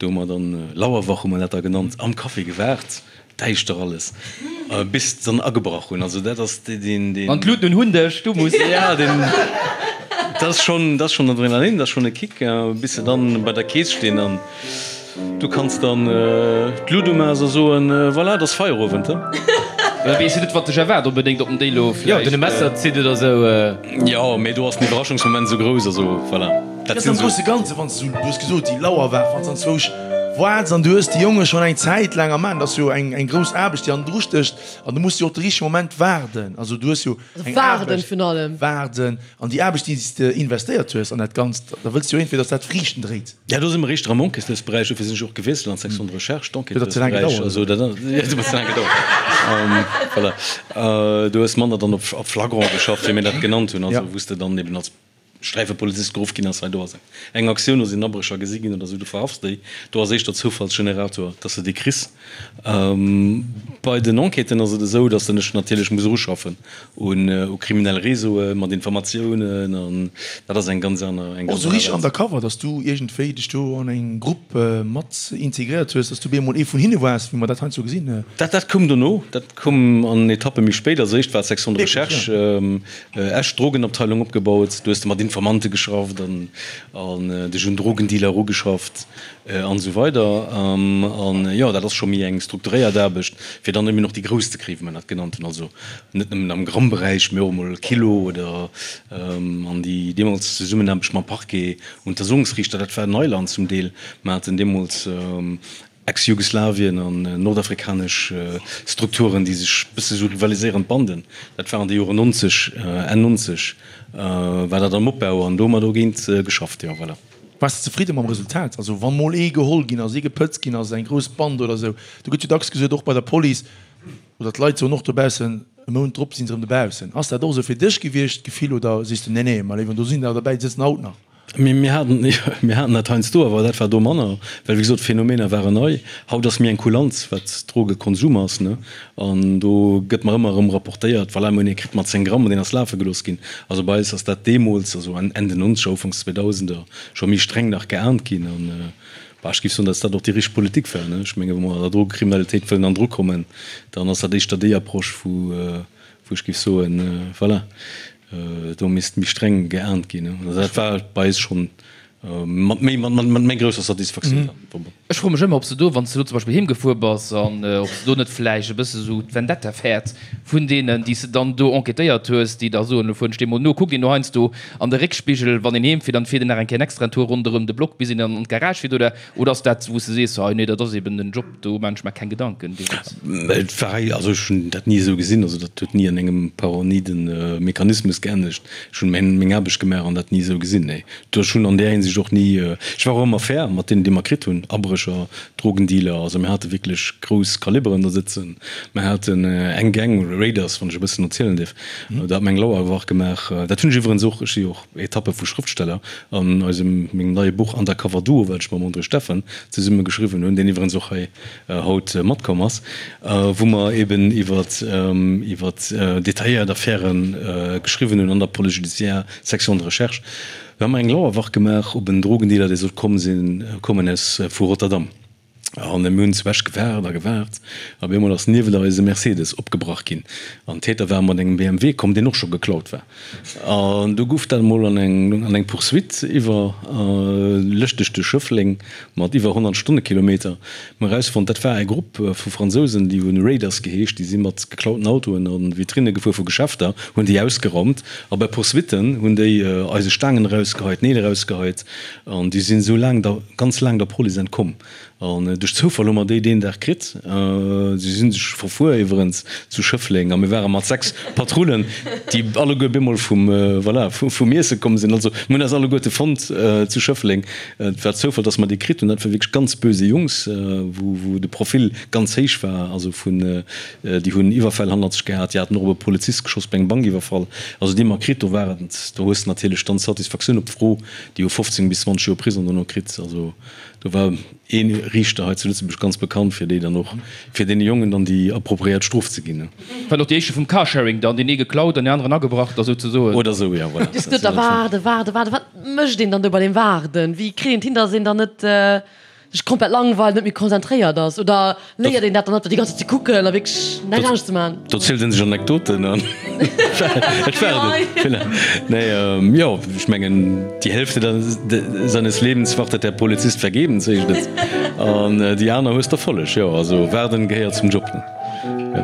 Do hu mer dann, Lauerwach hu mer dat da genannt, am Café gewaart, däischter alles, bis se dann agebrach hunn. Also dat ass deen, deen. An d'Luuten un hunn dech, du muss. Ja, deen, dat ass schonn, dat ass schonn Adrenalin, dat ass schonn e Kick, bis se dann bei der Kees stinn an. Du kanns dann d'Lut umaas a soen, Voilà, et ass Feierowend, he? Da weess jo net, wat dech erwaart onbedéngt op den Déi lo vläicht. Jo, den e Messer zitt oder sou. Jo, mee do ass den Iwwerraschungsmoment sou grouss, also voilà. Dat ass am grousse Ganze, wann s du, du hues gesot, déi Lauerwaach, wann s anzwousch waarts an du hues déi Jonge schonn eng Zäit laang am An, dat ass jo eng eng grouss Aarbecht, déi hannendru stécht an du muss jo och de richtege Moment waarden. Also du hues jo eng Waarden virun allem. Waarden an déi Aarbecht, déi s de investéiert hues an dat Ganzt, da wëlls du jo iergendwéi, datt dat Friichten dréit. Ja, do si mer éischter am Enquêteursberäich, dofir sinn ech och gewiesselt an d'Section de recherche, d'Enquêteursberäich. Also dat ass, jo, dat huet ze laang gedauert. Voilà. Du hues manner dann op flagrant geschafft, wéi mir dat genannt hunn, also wou s de dann eben als Sträifepolizist geruff ginn ass, hei do ass eng Aktioun, do sinn Abrécher gesi ginn oder esou, du verhafts déi. Do ass éischter Zoufallsgenerator, dass de déi kriss. Bei den Enquêten ass et esou, dass de dech natierlech muss eruschaffen u kriminell Réseaue mat Informatiounen an dat ass eng ganz aner, eng Och ganz esou aner richteg Welt. undercover, dass du iergendwéi dech do an eng Grupp mat integréiert hues, dass du bemol ee vun hinne waars, wéi mer dat heiansdo gesinn. Dat, dat koum dono, dat koum an Etappe méi spéit. Als éischt war d'Section de Wierklech, ja. recherche Esch, d'Drogenabteilung opgebaut. Du hues de mat Informante geschafft an dech un Drogendealer erugeschafft. An esou weider. An jo, dat ass scho méi eng strukturéiert Aarbecht, fir dann eben och déi Grouss ze kréien, wéi mer dat genannt hunn. Also net nëmmen am Grammberäich, mee och emol Kilo oder an déi deemools Zesummenaarbecht mam Parquet, Untersuchungsriichter, dat war Neiland zum Deel. Mer haten deemools Ex-Jugoslawien an nordafrikanesch Strukturen, déi sech e bësse sou rivaliséierend Banden, dat war an de Joren 90, Enn 90 war dat am Opbau an do hu mer dogéint geschafft, jo, voilà. Waars de zefridde mam Resultat? Also wann mol ee geholl ginn ass, ee gepëtzt ginn ass, eng grouss Band oder esou, do gëtt jo dacks gesot, och bei der Police, oder d'Leit soen och dobaussen, e Mount drop si se erëm dobaussen. Ass dat och esou fir dech gewiescht, d'Gefill, oder sees de, nee, nee, ma léiwen, do sinn der derbäi, déi sëtzen haut nach? Mir haten, mir haten dat heiansdo, awer dat war do manner, well wéi gesot, d'Phänomener waren nei. Haut ass méi eng Kulanz, wat Drogekonsum ass, ne? An do gëtt mer ëmmer erëm rapportéiert, voilà, mir hunn ee kritt mat 10 Gramm an deen ass lafe gelooss ginn. Also bei eis ass dat deemools, also Enn den Nonzeger, Ufanks Zweedausender, scho méi streng nach geahnt ginn. An, bah, ech géif soen, datt dat och déi richteg Politik war, ne. Ech menge wa mer der Drogekriminalitéit wëllen an d'Ru kommen, dann ass dat éischter déi Approche, wou, wou ech géif soen, voilà, do misst méi streng geahnt ginn. Also dat war bei eis schonn Mat méi, mat, mat méi grousser Satisfaktioun dann verbonnen. Ech froe mech ëmmer, ob s de do, wann s de do zum Beispill heem gefuer bass, an ob s de do net vläicht e bësse sou d'Vendetta fäerts vun deenen, déi s de dann do enquêtéiert hues, déi da soen, elo fueren ech deem mol no. Kuckt een do heiansdo an de Réckspigel, wann een heem fiert, an fiert een nach eng Kéier en extraen Tour ronderëm de Block, bis een dann an d'Garage fiert, oder, oder ass dat, wou s de sees, hei, nee, dat ass eben den Job, do maan ech mer keng Gedanken, dee Witz? Et war, also ech hunn dat ni esou gesinn, also dat huet ni an engem paranoiden Mechanismus geendegt. Ech hunn meng Aarbecht gemaach an dat ni esou gesinn, nee. Ech hunn an där Hinsicht. si ech och ni, ech war och ëmmer fair mat deenen, déi mer kritt hunn, Abrécher, Drogendealer, also mir hate wierklech grouss Kaliberen do sëtzen. Mir haten eng Gang, Raiders, wann ech e bëssen erzielen dierf, do hat mer eng Lauerwach gemaach. Dat hunn ech iwwerens och, ech si jo och Etappe vu Schrëftsteller, an eisem, mengem neie Buch Undercover Duo, wat ech mam André Steffen zesumme geschriwwen hunn, deen iwwerens och hei haut matkomm ass, wou mer eben iwwer iwwer detailléiert Affäre geschriwwen hunn an der Police judiciaire, Section de recherche. Do hu mer eng Lauerwach gemaach op en Drogendealer, dee sollt komm sinn, kommen aus vu Rotterdam. An mir hunn zu Esch gewaart a gewaart, a op eemol ass niewent eis e Mercedes opgebrach ginn. An d'Täter ware mat engem BMW komm, deen och scho geklaut war. An du guff dat emol an eng an eng Poursuite iwwer lëschteg duerch Schëffleng mat iwwer 100 Stonnekilometer. Mir hu erausfonnt, dat war e Grupp vu Fransousen, déi hunn Raiders geheescht, déi si mat geklauten Autoen a Vitrinne gefuer vu Geschäfter, hunn déi ausgeraumt a bei Poursuitten hunn déi eise Staangen erausgeheit, Neel erausgeheit an déi sinn esou laang der ganz laang der Police entkomm. An duerch Zoufall hu mer déi deen Dag kritt. Si si sech verfuer iwwerens zu Schëffleng a mir ware mat 6 Patrullen, déi alleguer bemol vum, voilà, vum Iesse komm sinn. Also mir hunn eis alleguerte fonnt zu Schëffleng. Et war Zoufall, dass mer déi kritt hunn. Dat ware wierklech ganz böse Jungs, wou, wou de Profil ganz héich war. Also vun, déi hunn Iwwerfäll hannert sech gehat, déi haten och op e Polizist geschoss bei engem Bankiwwerfall. Also déi mer kritt, do war et, do hues de natierlech dann d'Satisfaktioun op d'Fro, déi hu 15 bis 20 Joer Prisong dono kritt. Also do war ee Riichter hei zu Lëtzebuerg ganz bekannt, fir déi dann och, fir deene Jongen dann déi appropriéiert Strof ze ginn. War och déi éischte vum Carsharing dann, deen ee geklaut an deen aneren agebrach da souzesoen. Oder esou, jo, voilà. Just net da waarden, waarden, waarden. Wat mécht een dann do bei deem Waarden? Wéi kritt een et hin, datt een dann net sech komplett langweilt, net méi konzentréiert ass? Oder léiert een dat dann net, déi ganz Zäit ze kucken a wierklech näischt anescht ze maachen? Do zielt en sech Anekdoten an et waarden. Voilà. Nee, jo, ech mengen, die Hälfte seines Lebens wartet der Polizist vergebens, heescht et. An déi aner hues d'Erfolleg. Jo, also waarden gehéiert zum Job, ne? Jo.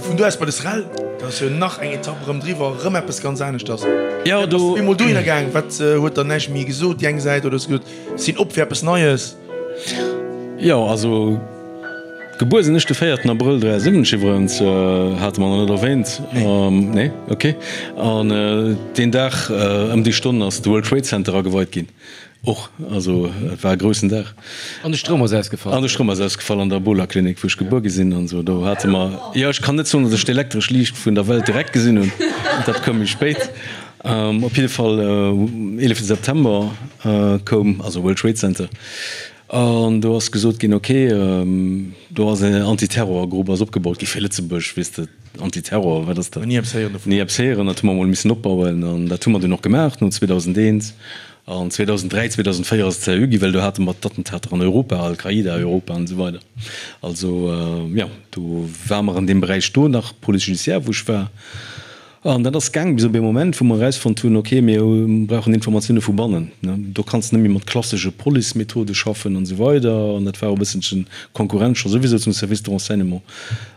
Vun do aus bei de SREL, dat ass jo nach eng Etapp erëm driwwer, erëm eppes ganz aneschters. Jo, do. Bass du bemol dohinner gaang? Wat huet dann näischt méi gesot, déi eng Säit, oder hues du gesot, Sinn op fir eppes Neies. Jo, also gebuer sinn ech de véierten Abrëll 73 iwwerens, hate mer nach net erwähnt. Nee? Ok. An deen Dag ëm déi Stonn ass de World Trade Center ageweit ginn och. Also et war e groussen Dag. An de Stroum ass ausgefall. An de Stroum ass ausgefall an der Ebola-Klinik, wou ech gebuer gi sinn an esou. Do hate mer, jo, ech kann net soen, datt ech d'elektresch Liicht vun der Welt direkt gesinn hunn, dat koum méi spéit. Op jidde Fall, 11 September koum, also World Trade Center, an do ass gesot ginn, ok, do ass en Antiterrorgrupp ass opgebaut gi fir Lëtzebuerg, weess de, Antiterror, wat ass dat? Ni eppes héieren dovun. Ni eppes héieren, dat hu mer emol missen opbauen an dat hu mer dunn och gemaach no 2001. An 2003, 2004 ass et seriö gi, well do hate mer d'Attentater an Europa, Al-Qaida, Europa an esou weider. Also, jo, do ware mer an deem Beräich do nach, Police judiciaire, wou ech war. An dat ass gaang bis op ee Moment, wou mer erausfonnt hunn, ok, mir brauchen Informatioune vu bannen. Do kanns de net méi mat klassesche Police-Methode schaffen an esou weider. An dat war och e bësselchen Konkurrenz scho souwisou zum Service de renseignement.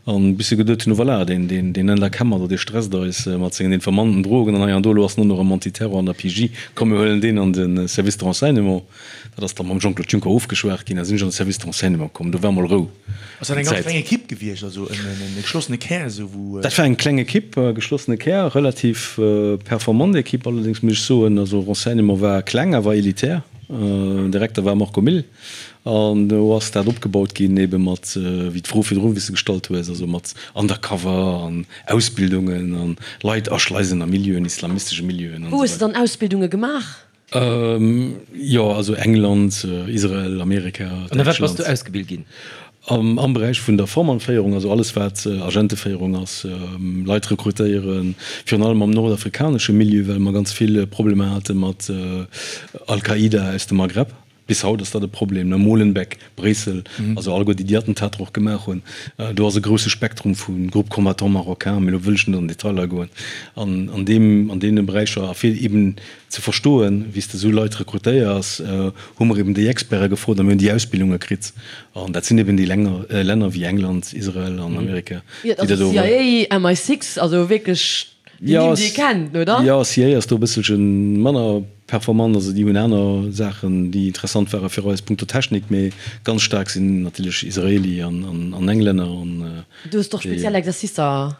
An bis se geduet hunn, oh voilà, deen, deen, deen Änder Kemmer do, dee stresst eis mat sengen Informanten, Drogen an hei an do, elo ass en och nach am Antiterror an der PJ, komm mir huelen deen an de Service de renseignement. Dat ass da mam Jean-Claude Juncker ofgeschwat ginn, da sinn ech an de Service de renseignement komm. Do war mol Rou. Ass dat eng ganz kleng Ekipp gewiescht, also en geschlossene Kär esou wou? Dat war eng kleng Ekipp, e geschlossene Kär, relativ performant Ekipp allerdéngs, muss ech soen. Also Renseignement war kleng, awer elitär. Direkter war Marco Mille an do ass dat opgebaut ginn ebe mat, wéi d'Fro virdru wéi s de gestallt hues, also mat Undercover an Ausbildungen an Leit aschleisen a Milieuen, islamistesche Milieuen an Wou hues de esou weider. dann Ausbildunge gemaach? Jo, also England, Israel, Amerika, An a wat bass du ausgebilt ginn? Am Beräich vun der Formannféierung, also alles wat Agenteféierung ass, Leit rekrutéieren, virun allem am nordafrikanesche Milieu, well mer ganz vill Problemer hate mat Al-Qaida aus dem Maghreb. Bis haut ass dat e Problem, ne? Molenbeek, Bréissel, also alleguer déi, déi Attentater och gemaach hunn. Do ass e grousse Spektrum vu Groupes combattants marocains, mee elo wëll ech net an Detailer goen, an an deem, an deene Beräicher. A fir eben ze verstoen, wéi s de esou Leit rekrutéiers, hu mer eben déi Experte gefrot a mir hunn déi Ausbildunge kritt. An dat sinn eben déi Länner, Länner wéi England, Israel an Amerika, déi dat do. CIA, MI6, also wierklech déi Nimm, déi ee kennt, oder? Jo, CIA ass do e bësselche manner performant, also déi hunn aner Saachen, déi interessant ware fir eis punkto Technik, mee ganz staark sinn natierlech Israeli an Englänner an Du hues och speziell Exercicer.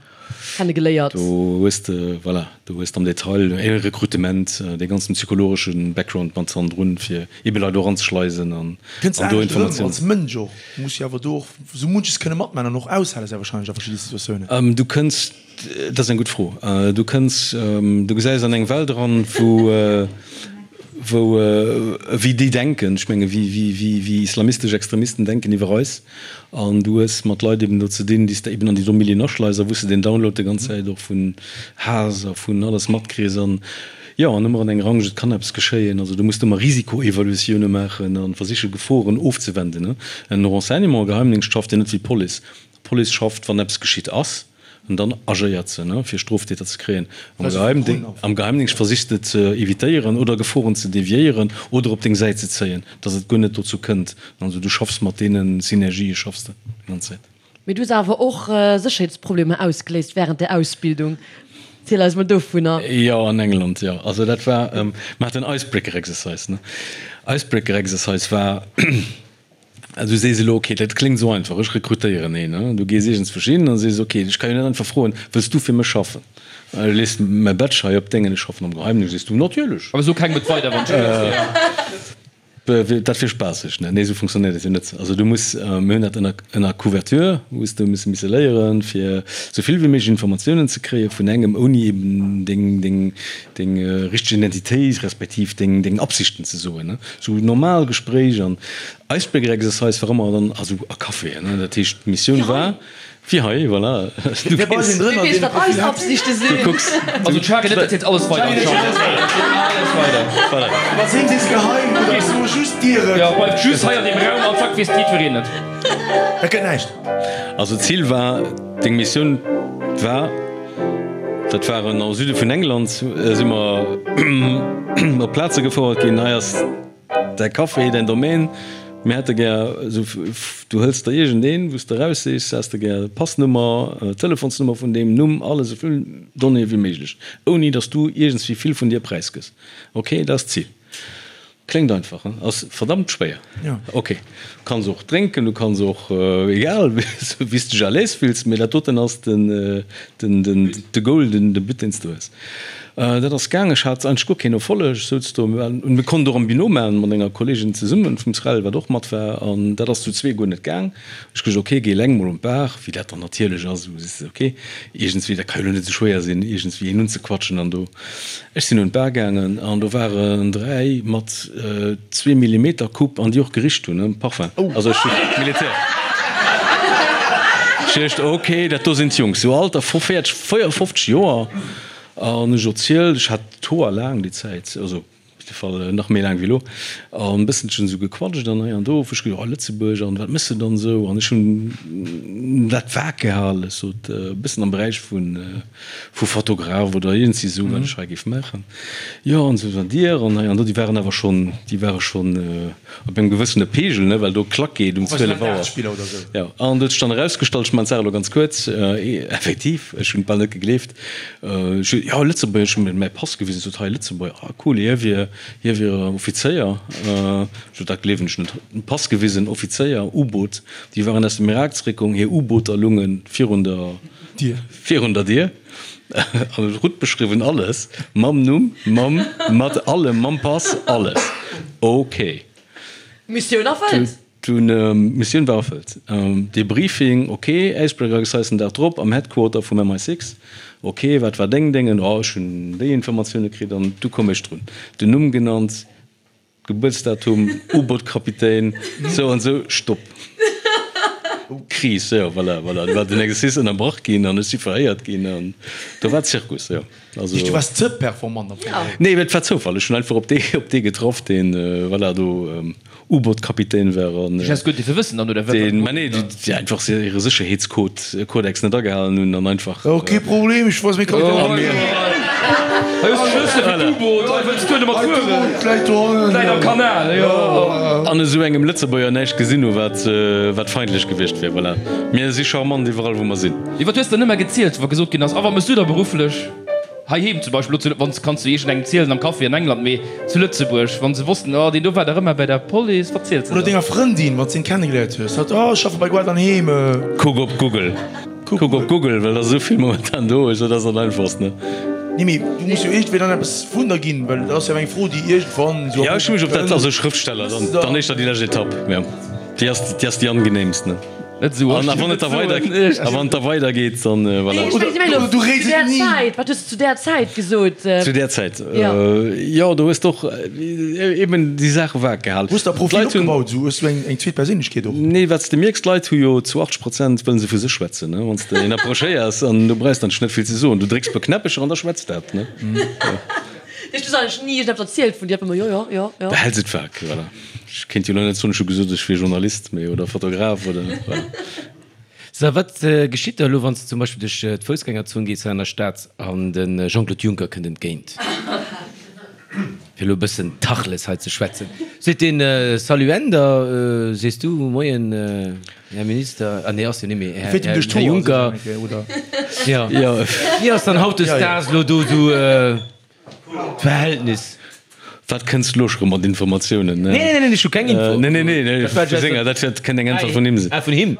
Kenne geléiert. Do hues de, voilà, do hues de am Detail e Rekrutement, dee ganzen psychologesche Background mat hannendrun, fir ebe Leit do eranzeschleisen an Kënns do anescht erëm Informatiounen. als Mënsch och. Du muss jo awer do och sou munches kënne matman an och aushale sehr wahrscheinlech a verschidde Situatiounen. Du kënns, dat ass eng gutt Fro, du kënns, du gesäis an eng Welt eran, wou, wou, wéi déi denken, ech menge wéi, wéi, wéi, wéi islamistesch Extremisten denken iwwer eis. An du hues mat Leit eben do ze dinn, déi s de eben an déi do Milieuen aschleis a wou s de den Download déi ganz Zäit och vun Haass a vun alles matkriss. An jo, an ëmmer an enger Angscht, et kann eppes geschéien. Also du muss ëmmer Risikoevaluatioune maachen a versiche Geforen ofzewenden. En Renseignement, e Geheimdingscht schafft jo net wéi d'Police. D'Police schafft, wann eppes geschitt ass. An dann agéiert se, fir Stroftäter ze kréien. Am Geheimdingscht versichs de ze evitéieren oder Geforen ze deviéieren oder op deng Säit ze zéien, dass et guer net dozou kënnt. Also du schaffs mat deene Synergië schaffs de déi ganz Zäit. Mee du hues awer och Sécherheetsproblemer ausgeléist wärend der Ausbildung. Ziel eis mol dovunner. Jo, an England, jo. Also dat war, mer haten Icebreaker Exercise, ne. Icebreaker Exercise war. Du sees elo, ok, dat kléngt esou einfach, ech rekrutéieren een. Du gees iergendswousch hin a sees, ok, ech ka jo net einfach froen, wëlls du fir mech schaffen? Ech lees mäi Badge hei op dengen, ech schaffen am Geheimdéngscht. Sees du, natierlech. Awer so kengem et weider, wann ech gëtt. Dat wier spaasseg, ne? Nee, esou funktionéiert dat jo net. Also du muss, mir hunn dat ënner, ënner Couverture, hues du misse misse léieren, fir esou vill wéi méiglech Informatiounen ze kréie vun engem, ouni eben deng, deng, deng richteg Identitéit respektiv deng, deng Absichten ze soen, ne? Sou normal Gespréich an Icebreaker Exercise war ëmmer dann also a Caféen, ne? Dat heescht d'Missioun war wéi hei, voilà, du Wee bei gees, sinn drënner, Wee weess, deen wat eis Absichte du sinn. kucks, Also d'Shari, net, dat zielt alles weider an d'Schamber. Dat zielt alles weider. Voilà. Wat sinn sees geheim oder ech soe just dir et. Jo, bleift just hei an deem Raum an zack weess jiddwereen et. Dat gëtt näischt. Also d'Zil war, deng Missioun war, dat waren am Süde vun England, si mer op Plaze gefouert ginn, hei ass Däi Café, däin Domaine, mir hätte gär esou, du hëls der iergendeen, wou s de eraussichs, häss de gär Passnummer, Telefonsnummer vun deem, Numm, alles, esou vill Donnéeë wéi méiglech, ouni datt s du iergendswéi vill vun dir präisgëss. Ok, dat ass d'Zil. Kléngt einfach, hein? Ass verdammt schwéier. Ok, du kanns och drénken, du kanns och, egal, wéi s de dech à l'aise fills, mee dat doten ass den, den, den, de Goal, den, de But, deen s de hues. Dat ass gaang. Ech hat eigentlech guer keen Erfolleg. Ech souz do, mir konnten och am Binôme maachen, mat enger Kolleegin zesummen vum SREL, wat och mat war, an dat ass zu zwee guer net gaang. Ech gesot, ok, géi eleng mol un d'Bar, wéi dat dann natierlech ass, esou sees de, ok, iergendswéi, dat ka jo elo net esou schwéier sinn, iergendswéi een unzequatschen an do. Ech sinn un d'Bar gaangen an do waren 3 mat zwee Millimeter Coupe an déi och gericht hunn, ne, Parfum, also ech hu Militär. Ech duecht, ok, dat do sinn d'Jungs, sou Alter vu 40, 54 Joer. An ech erzielt, ech hat d'Hoer laang déi Zäit, also op jidde Fall nach méi laang wéi elo, an e bësselchen esou gequatscht an hei an do. Ech gesot, oh Lëtzebuerg an wat méchs de dann esou? An ech hunn dat vag gehalen, ech sot e bëssen am Beräich vu vu Fotograf oder iergendwéi esou, wat ech hei géif maachen. Jo an esou, an Dir? An hei an do. Déi waren awer schonn, déi ware schonn op engem gewëssene Pegel, ne, well do Klack geet um 12 Auer. Jo, an et huet sech dann erausgestallt, ech maachen d'Saach elo ganz kuerz, effektiv, ech hunn et bal net gegleeft, ech hu, jo, Lëtzebuerger, ech hu mir mäi Pass gewisen, sot, hei Lëtzebuerger, ah cool, hie wier, hie wier Offizéier. Ech sot, dat gleewen ech net. Pass gewisen, Offizéier, U-Boot, déi waren aus dem Irak zeréckkomm, hir U-Booter lunge virun der Dier, virun der Dier. An et rout beschriwwen, alles mam Numm, mam, mat allem, mam Pass, alles. Ok. Missioun erfëllt. Dunn, Missioun war erfëllt. Debriefing, ok, Icebreaker Exercise den Dag drop am Headquarter vum MI6. Ok, wat war deng Déngen? Oh, ech hunn déi Informatioune kritt an du koum ech drun. Den Numm genannt. Gebuertsdatum, U-Boot-Kapitän, sou an sou, Stopp. Kris, jo, voilà, voilà, do war den Exercice ënnerbrach ginn an ech si verhéiert ginn an do war Zirkus, jo. Also. Du waars ze performant am Fong. Nee, et war Zoufall, ech hunn einfach op dee, op dee getraff, deen, voilà, do U-Boot-Kapitän war an. Ech häss guer dierfe wëssen dann, oder wat? Deen, mä nee, déi einfach hire Sécherheetscode, Kodex net agehalen hunn an einfach. Oh, kee Problem, ech weess, mir kommen Oh, hei hues de Schlëssele fir d'U-Boot, hei wëlls du domat fueren? D'U-Boot läit dohannen. Läit am Kanal, jo. An esou engem Lëtzebuerger näischt gesinn hu wat, wat feindlech gewiescht wier. Voilà, mir si charmant iwwerall wou mer sinn. Mee wat hues de dann ëmmer gezielt, wa gesot ginn ass, a wat méchs du da berufflech heiheem zum Beispill, elo zu, wann s, kanns du iergendengem zielen am Café an England, mee zu Lëtzebuerg, wa se wossten, oh deen do war dach ëmmer bei der Police, wat ziels de Oder dann? denger Frëndin, wann s de en kennegeléiert hues, hatt, oh ech schaffe bei Guarda an Heem. Kuck op Google. Kuck op Google, well der esou vill momentan do ass, dat ass dat einfachst, ne? Nee, mee du muss jo iergendwéi dann eppes vun der ginn, well dat ass jo eng Fro, déi iergendwann esou. Jo, ech hu mech op dat, also Schrëftsteller, dann, dann éischter déi lescht Etapp, jo, déi ass, déi ass déi angenehmst, ne? Net esou An a wann et da weider, a wann et da weidergeet, dann voilà. Ech mengen, Du réits zu där et ni. Zäit, wat hues de zu där Zäit gesot? Zu där Zäit, jo, do hues de och eben déi Saache vag gehalen. Hues de e Profil D'Leit hunn. opgebaut, esou hues du eng, eng zweet Perséinlechkeet och? Nee, wat s de mierks, d'Leit hu jo zu 80 Prozent wëllen se vu sech schwätzen, ne? Wann s de een approchéiers an du brauchs dann net vill ze soen, du drécks e puer Knäppecher an da schwätzt dat, ne? Hues du eigentlech ni iergendeppes erzielt vun dir? Einfach emol jo, jo, jo, jo. Behäls et vag, voilà. Ech kéint jo elo net soen, ech hu gesot, ech wier Journalist, mee, oder Fotograf oder voilà. So, wat geschitt da elo, wann s de zum Beispill duerch d'Foussgängerzon gees hei an der Stad an de Jean-Claude Juncker kënnt entgéint, fir elo e bëssen Tachles hei ze schwätzen, seet deen, Salut Änder, sees du, Moien, Här Minister, ah nee, ass jo net méi, Här Juncker, jo, wéi ass dann hautdesdaags elo do esou D'Verhältnis. Wat kënns de elo scho mat Informatiounen? Nee, nee, nee, ech hu keng Info. Nee, nee, nee, nee, vu senger, dat wäert kënnt eng Äntwert vun him sinn. Ah, vun him?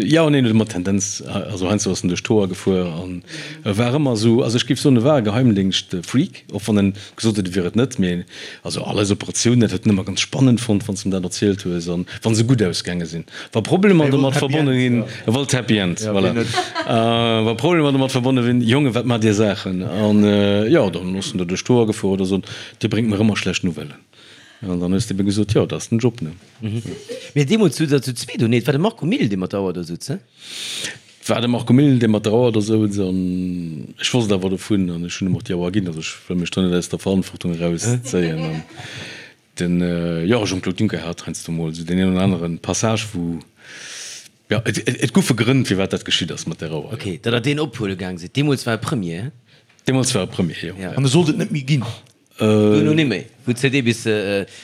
Jo, neen, huet ëmmer Tendenz, also heiansdo ass en duerch d'Hoer gefuer an e war ëmmer esou, also ech géif soen, e war e Geheimdingscht-Freak, och wann en gesot huet, e wier et net, mee also all eis Operatiounen, dat huet en ëmmer ganz spannend fonnt, wann s de em dat erzielt hues an wa se gutt ausgaange sinn. Wa Problemer domat verbonne ginn, e wollt Happy End, voilà. Wa Problemer domat verbonne sinn, Jongen, wat maacht Dir Saachen? An jo, dann ass en do duerch d'Hoer gefuer oder sot, Dir bréngt mer ëmmer schlecht Nouvellen. An dann hues de ebe gesot, Jo, dat ass den Job, ne? Mee deemools sot Der zu zweet, oh nee, et war de Marco Mille, dee mat der Auer do sutz, he? Et war de Marco Mille, dee mat der Auer do souz an ech wosst awer dovun an ech hunn em och déi Auer ginn. Also ech wëll mech do net aus der Verantwortung erauszéien. Den, jo, Jean-Claude Juncker hat heiansdo mol esou deen een oder anere Passage, wou, jo, et, et goufe Grënn, firwat dat geschitt ass mat där Auer, jo. Ok, datt Der deen ophuele gaang sidd. Deemools war e Premier, he? Deemools war e Premier, jo. An e sollt et net méi ginn. Duerno ni méi, wou d'CD bis,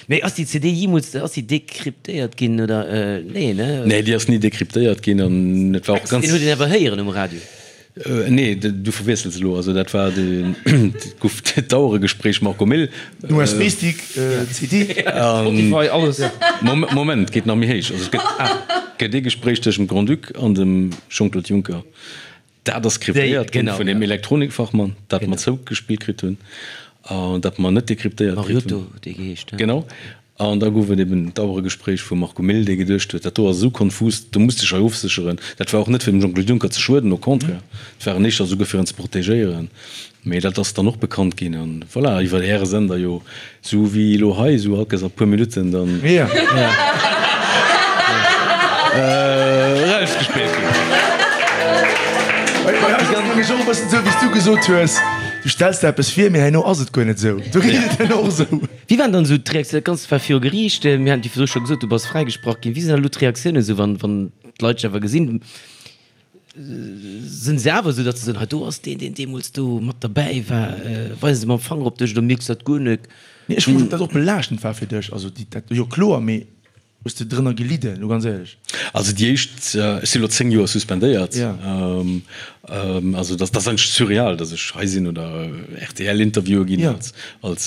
mee ass déi CD jeemools, ass déi dekryptéiert ginn oder? Nee, ne? Nee, déi ass ni dekryptéiert ginn an et war och ganz. Deen huet een awer héieren um Radio. Nee, du verwiessels elo. Also dat war de, et gouf d'Aueregespréich Marco Mille. Den USB-Stick, CD. Spotify, alles. Moment, et geet nach méi héich. Also et gëtt, gëtt ee Gespréich tëschent dem Grand-Duc an dem Jean-Claude Juncker. Dat ass kryptéiert ginn vun deem Elektronikfachmann, dat mer zougespillt kritt hunn an dat mer net dekryptéiert kritt hunn. Mariotto huet dee geheescht, he? Genau. An da gouf et eben d'Aueregespréich vum Marco Mille, dee geduecht huet, dat do ass esou konfus, do muss de dech hei ofsécheren. Dat war och net fir dem Jean-Claude Juncker ze schueden, au contraire, et war en éischter esouguer fir en ze protegéieren. Mee dat ass dann och bekannt ginn an voilà, iwwer Äre Sender jo, esou wéi elo hei, esou all Kéiers a puer Minutten dann erausgespillt ginn. Bei eis ass et nämlech och e bëssen esou, wéi s du gesot hues, du stells der eppes vir, mee herno ass et guer net esou. Do geet et herno och esou. Wéi waren dann esou d'Reaktiounen? Dat Ganzt war viru Geriicht, mir haten déi virdru scho gesot, du bass fräigesprach ginn. Wéi sinn dann elo d'Reaktiounen esou, wann, wann d'Leit dech awer gesinn? Sinn se awer esou, datt se soen, hei do ass deen, deen deemools do mat derbäi war? Weise se mam Fanger op dech oder mierks du dat guer net? Nee, ech froe mech, ob dat och belaaschtend war fir dech. Also déi, dat, jo kloer, mee Hues de drënner gelidden, lo ganz éierlech? Also déi éischt, ech si lo 10 Joer suspendéiert, also dat ass eigentlech surreal, datt ech hei sinn oder RTL-Interviewe ginn als,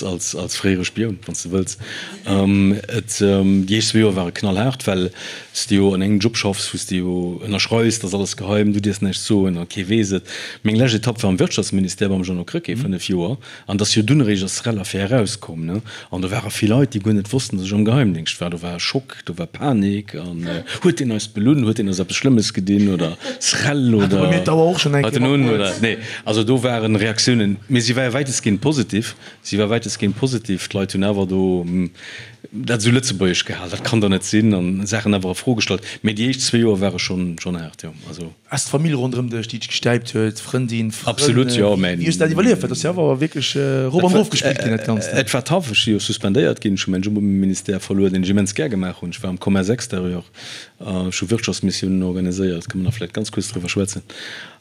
als, als fréiere Spioun, wann s de wëlls. Et, déi éischt zwee Joer ware knallhaart, well s de jo an engem Job schaffs, wou s de jo ënnerschreifs, dat ass alles geheim, du dierfs näischt soen a kee weess et. Meng lescht Etapp war am Wirtschaftsministère beim Jeannot Krecké, 5 Joer. An et ass jo dunn eréischt ass d'Srel-Affär erauskomm, ne? An do ware vill Leit, déi guer net wossten, datt ech am Geheimdéngscht war. Do war e Schock, do war Panik an, huet deen eis belunn, huet deen eis eppes Schlëmmes gedinn oder Srel oder hat en un oder nee. Also do waren Reaktiounen, mee si war wäitestgehend positiv, si war wäitestgehend positiv. D'Leit hunn awer do dat esou lëtzebuergesch gehal, dat kann der net sinn an Saachen awer a Fro gestallt. Mee déi éischt zwee Joer ware schonn, schonn haart, jo. Also. Ass d'Famill ronderëm dech, déi dech gestäipt huet, Frëndin, Frënn, Absolut, jo, mä. Wéi hues de dat iwwerlieft? Well dat ass jo awer wierklech erop an erof gespillt ginn, dat Ganzt. Et war tough. Ech si jo suspendéiert ginn. Ech hu mäin Job um Ministère verluer, deen ech immens gär gemaach hunn. Ech war am Commerce extérieur. Ech hu Wirtschaftsmissiounen organiséiert, kënne mer nach vläicht ganz kuerz driwwer schwätzen.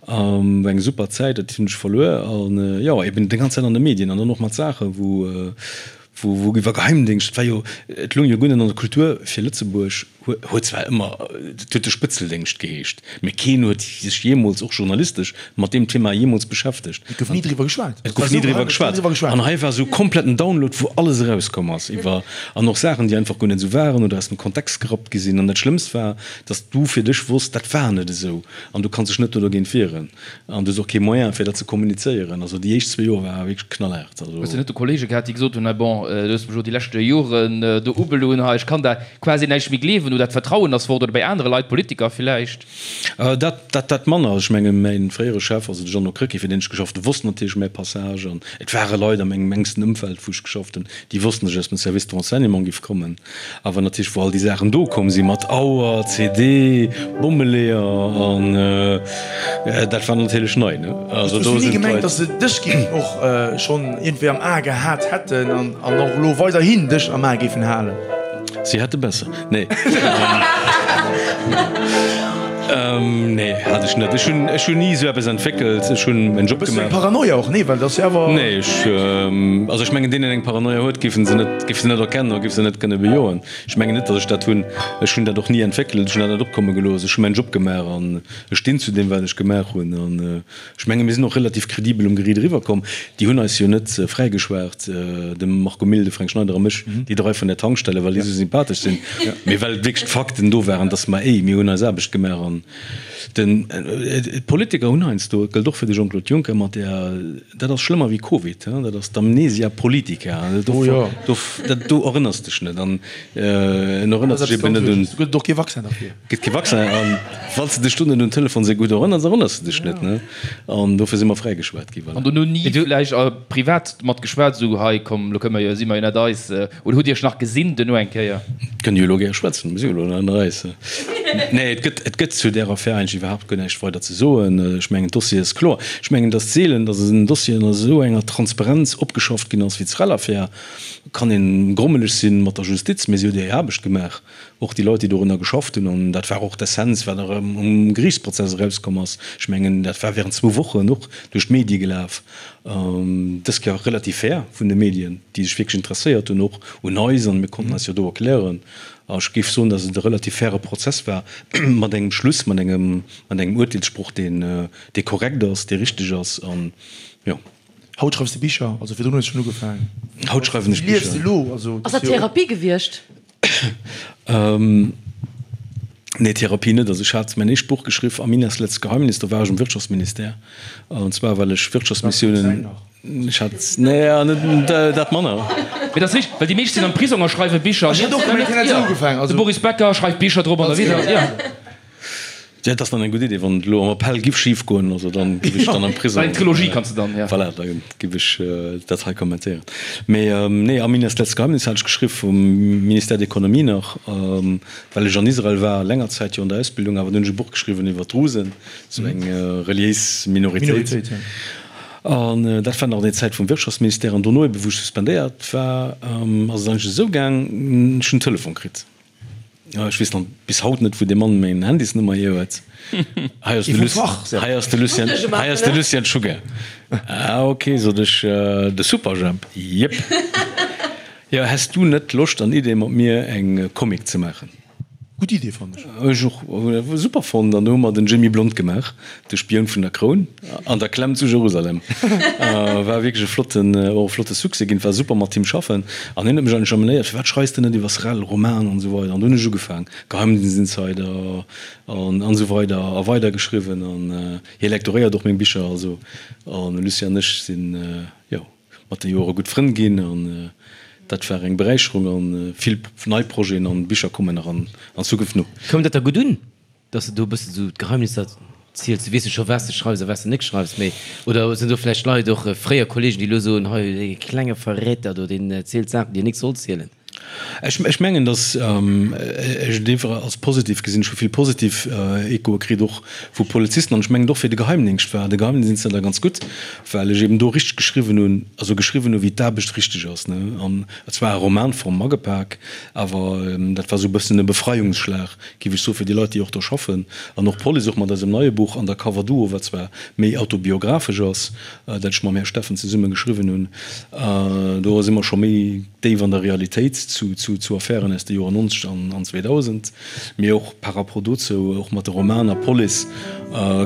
War eng super Zäit, dat hunn ech verluer. An jo, eben déi ganz Zäit an de Medien an dann och mat Saachen, wou. Wou, wou iwwer Geheimdéngscht, et war jo, et loung jo guer net an der Kultur fir Lëtzebuerg, huet zwar ëmmer, et huet de Spëtzeldéngscht geheescht, mä keen huet sech jeemools, och journalistesch, mat deem Thema jeemools beschäftegt. Et gouf ni driwwer geschwat. Et gouf ni driwwer geschwat. An hei war esou kompletten Download, wou alles erauskomm ass iwwer, an och Saachen, déi einfach guer net esou waren oder aus dem Kontext gerappt gi sinn. An dat Schlëmmst war, datt du fir dech wosst, dat war net esou an du kanns dech net do dogéint wieren. An du hues och kee Moyen, fir dat ze kommunizéieren. Also déi éischt zwee Joer war wierklech knallhaart. Also. Hues de net do Kollege gehat, déi gesot hunn, hei bon, du hues mech elo déi leschte Joren do ubelunn, hei ech kann der quasi näischt méi gleewen oder d'Vertrauen ass fort oder bei anere Leit, Politiker villäicht? Dat, dat, dat manner. Also ech menge mäin fréiere Chef, also de Jeannot Krecké, fir deen ech geschafft hunn, wosst natierlech mäi Passage. An et ware Leit a mengem enksten Ëmfeld, wou ech geschafft hunn, déi wossten, datt ech aus dem Service de renseignement giff kommen. Awer natierlech wou all déi Saachen do komm sinn, mat Auer, CD, Bommeleeër an dat war natierlech nei, ne? Also do sinn d'Leit. Hues du ni gemengt, datt se dech géifen och schonn iergendwéi am A gehat hätten an och elo weiderhin dech am A géifen halen? Si hätte besser. Nee. Nee, hat ech net. Ech hunn, ech hunn ni esou eppes entwéckelt. Ech hunn mäin Job gemaach. Bëssen eng Paranoia och, nee? Well dat ass jo awer. Nee, ech, also ech mengen, deen deen eng Paranoia huet, géif en se net, géif se net erkennen oder géif se net kënne bejoen. Ech mengen net, datt ech dat hunn. Ech hunn dat och ni entwéckelt. Ech hunn dat net opkomme gelooss. Ech hu mäin Job gemaach an ech stinn zu deem, wat ech gemaach hunn. An Ech menge mir sinn och relativ kredibel um Geriit eriwwer komm. Déi hunn eis jo net fräigeschwat, de Marco Mille, de Fränk Schneider a mech, déi drai vun der Tankstelle, well déi esou sympathesch sinn, mee well wierklech d'Fakten do waren, datt mer, éi, mir hunn eis Aarbecht gemaach an den, d'Politiker hunn heiansdo, et gëllt och fir de Jean-Claude Juncker, mat där, dat ass schlëmmer wéi Covid, dat ass d'Amnesia politica, do, do erënners dech net an en erënnert sech eben net un. Gëtt et och kee Vaccin derfir? Gëtt kee Vaccin an wann s de dech do net un Telefon esou gutt erënners, erënners de dech net, ne? An dofir si mer fräigeschwat gi, voilà. An dono ni vläicht privat mat geschwat, esou, hei komm, lo kënne mer jo, si mer jo net eis, oder hutt Dir iech nach gesinn duerno eng Kéier? Kënne jo elo gäre schwätzen, mir si jo elo net ënner eis. Nee, et gëtt, et gëtt zu där Affär eigentlech iwwerhaapt guer näischt weider ze soen. Ech mengen, d'Dossier ass kloer. Ech mengen, et ass seelen, datt en Dossier an esou enger Transparenz opgeschafft ginn ass wéi d'Srel-Affär. Kann een grommeleg sinn mat der Justiz, mee si huet hir Aarbecht gemaach. Och déi Leit, déi dorunner geschafft hunn, an dat war och d'Essenz, wat erëm um Geriichtsprozess erauskomm ass, ech mengen, dat war während zwou Wochen och duerch d'Medie gelaf, dës Kéier relativ fair vun de Medien, déi sech wierklech interesséiert hunn, och un eis, an mir konnten eis jo do erklären. A ech géif soen, datt et e relativ faire Prozess war, mat engem Schluss, mat engem, mat engem Urteelssproch, deen, dee korrekt ass, dee richteg ass, an jo. Haut schreifs de Bicher, also virdrun hues de schonn ugefaangen. Haut schreiwen ech Wéi liefs de Bicher. elo? Also, Ass dat Therapie gewiescht? Nee, Therapie net. Also ech hat mäin éischt Buch geschriff, Aminas letztes Geheimnis, do war ech um Wirtschaftsministère. An zwar well ech Wirtschaftsmissiounen, ech hat, nee, net dat manner. Mee dat ass richteg, well déi meescht sinn am Prisong a schreiwe Bicher. Ech hat och gemengt, hien hätt esou ugefaangen. De Boris Becker schreift Bicher drop an derwidder, jo. Ja, dat ass dann eng gutt Idee, wann et elo am Appell giff schif goen, also dann giff ech dann am Prisong. Eng Trilogie kanns de dann, ja. Voilà, da giff ech dat hei kommentéieren. Mee nee, Aminas letztes Geheimnis hat ech geschriww vum Ministère d'Economie nach, well ech an Israel war, länger Zäit jo an der Ausbildung, awer dunn hunn ech e Buch geschriwwen iwwer d'Drusen, sou eng reliéis Minoritéit. An dat war nach an der Zäit vum Wirtschaftsministère. An dono ebe wou ech suspendéiert war, ass et eigentlech esou gaang, ech hunn en Telefon kritt. Ech weess nach bis haut net, wou dee Mann meng Handysnummer hier huet. Hei ass de Lucien, hei ass de Lucien, hei ass de Lucien Czuga. Ah ok, sot ech, de Superjhemp? Jep. Jo, häss du net Loscht an Idee mat mir eng Comic ze maachen? Gutt Idee, fannen ech. Ech och, super fonnt. An do hu mer den Jimmy Blond gemaach, de Spioun vun der Kroun an der Klemm zu Jerusalem. War wierklech e flotten, och e flotte Succès ginn. War super mat him schaffen. An hien huet mech eigentlech amenéiert, Firwat schreis de net iwwer Srel, Roman an esou weider. An do hunn ech ugefaang, Geheimdienst-Insider an an esou weider a weider geschriwwen. An hie lektoréiert och meng Bicher. Also, an Lucien an ech sinn, jo, mat de Joere gutt Frënn ginn. An dat war eng Beräicherung. An vill nei Projeten an Bicher kommen nach an Zukunft no. Koum dat da gutt un? Dass de do e bëssen esou d'Geheimnisser ziels, du weess jo scho wat s de schreifs a wat s de net schreifs, mee oder sinn do vläicht Leit, och fréier Kollegen, déi elo soen, hei dee klenge Verräter do, deen zielt Saachen, déi en nik soll zielen? Ech, ech mengen, datt ech et einfach als positiv gesinn. Ech hu vill positiv Echoe kritt, och vu Polizisten. An ech mengen, och fir de Geheimdingscht war de Geheimdienst da ganz gutt, well ech eben do richteg geschriwwen hunn, also geschriwwen hu wéi d'Aarbecht richteg ass, ne. An et war a Romanform agepak, awer dat war esou e bëssen e Befreiungsschlag, géif ech soen, fir déi Leit, déi och do schaffen. An och d'Police, och mat eisem neie Buch Undercover Duo, wat zwar méi autobiographesch ass, dat ech mam Här Steffen zesumme geschriwwen hunn, do si mer scho méi déif an der Realitéit zu Affären aus de Joer 90 an 2000, mee och par rapport dozou, och mat de Romaner Police,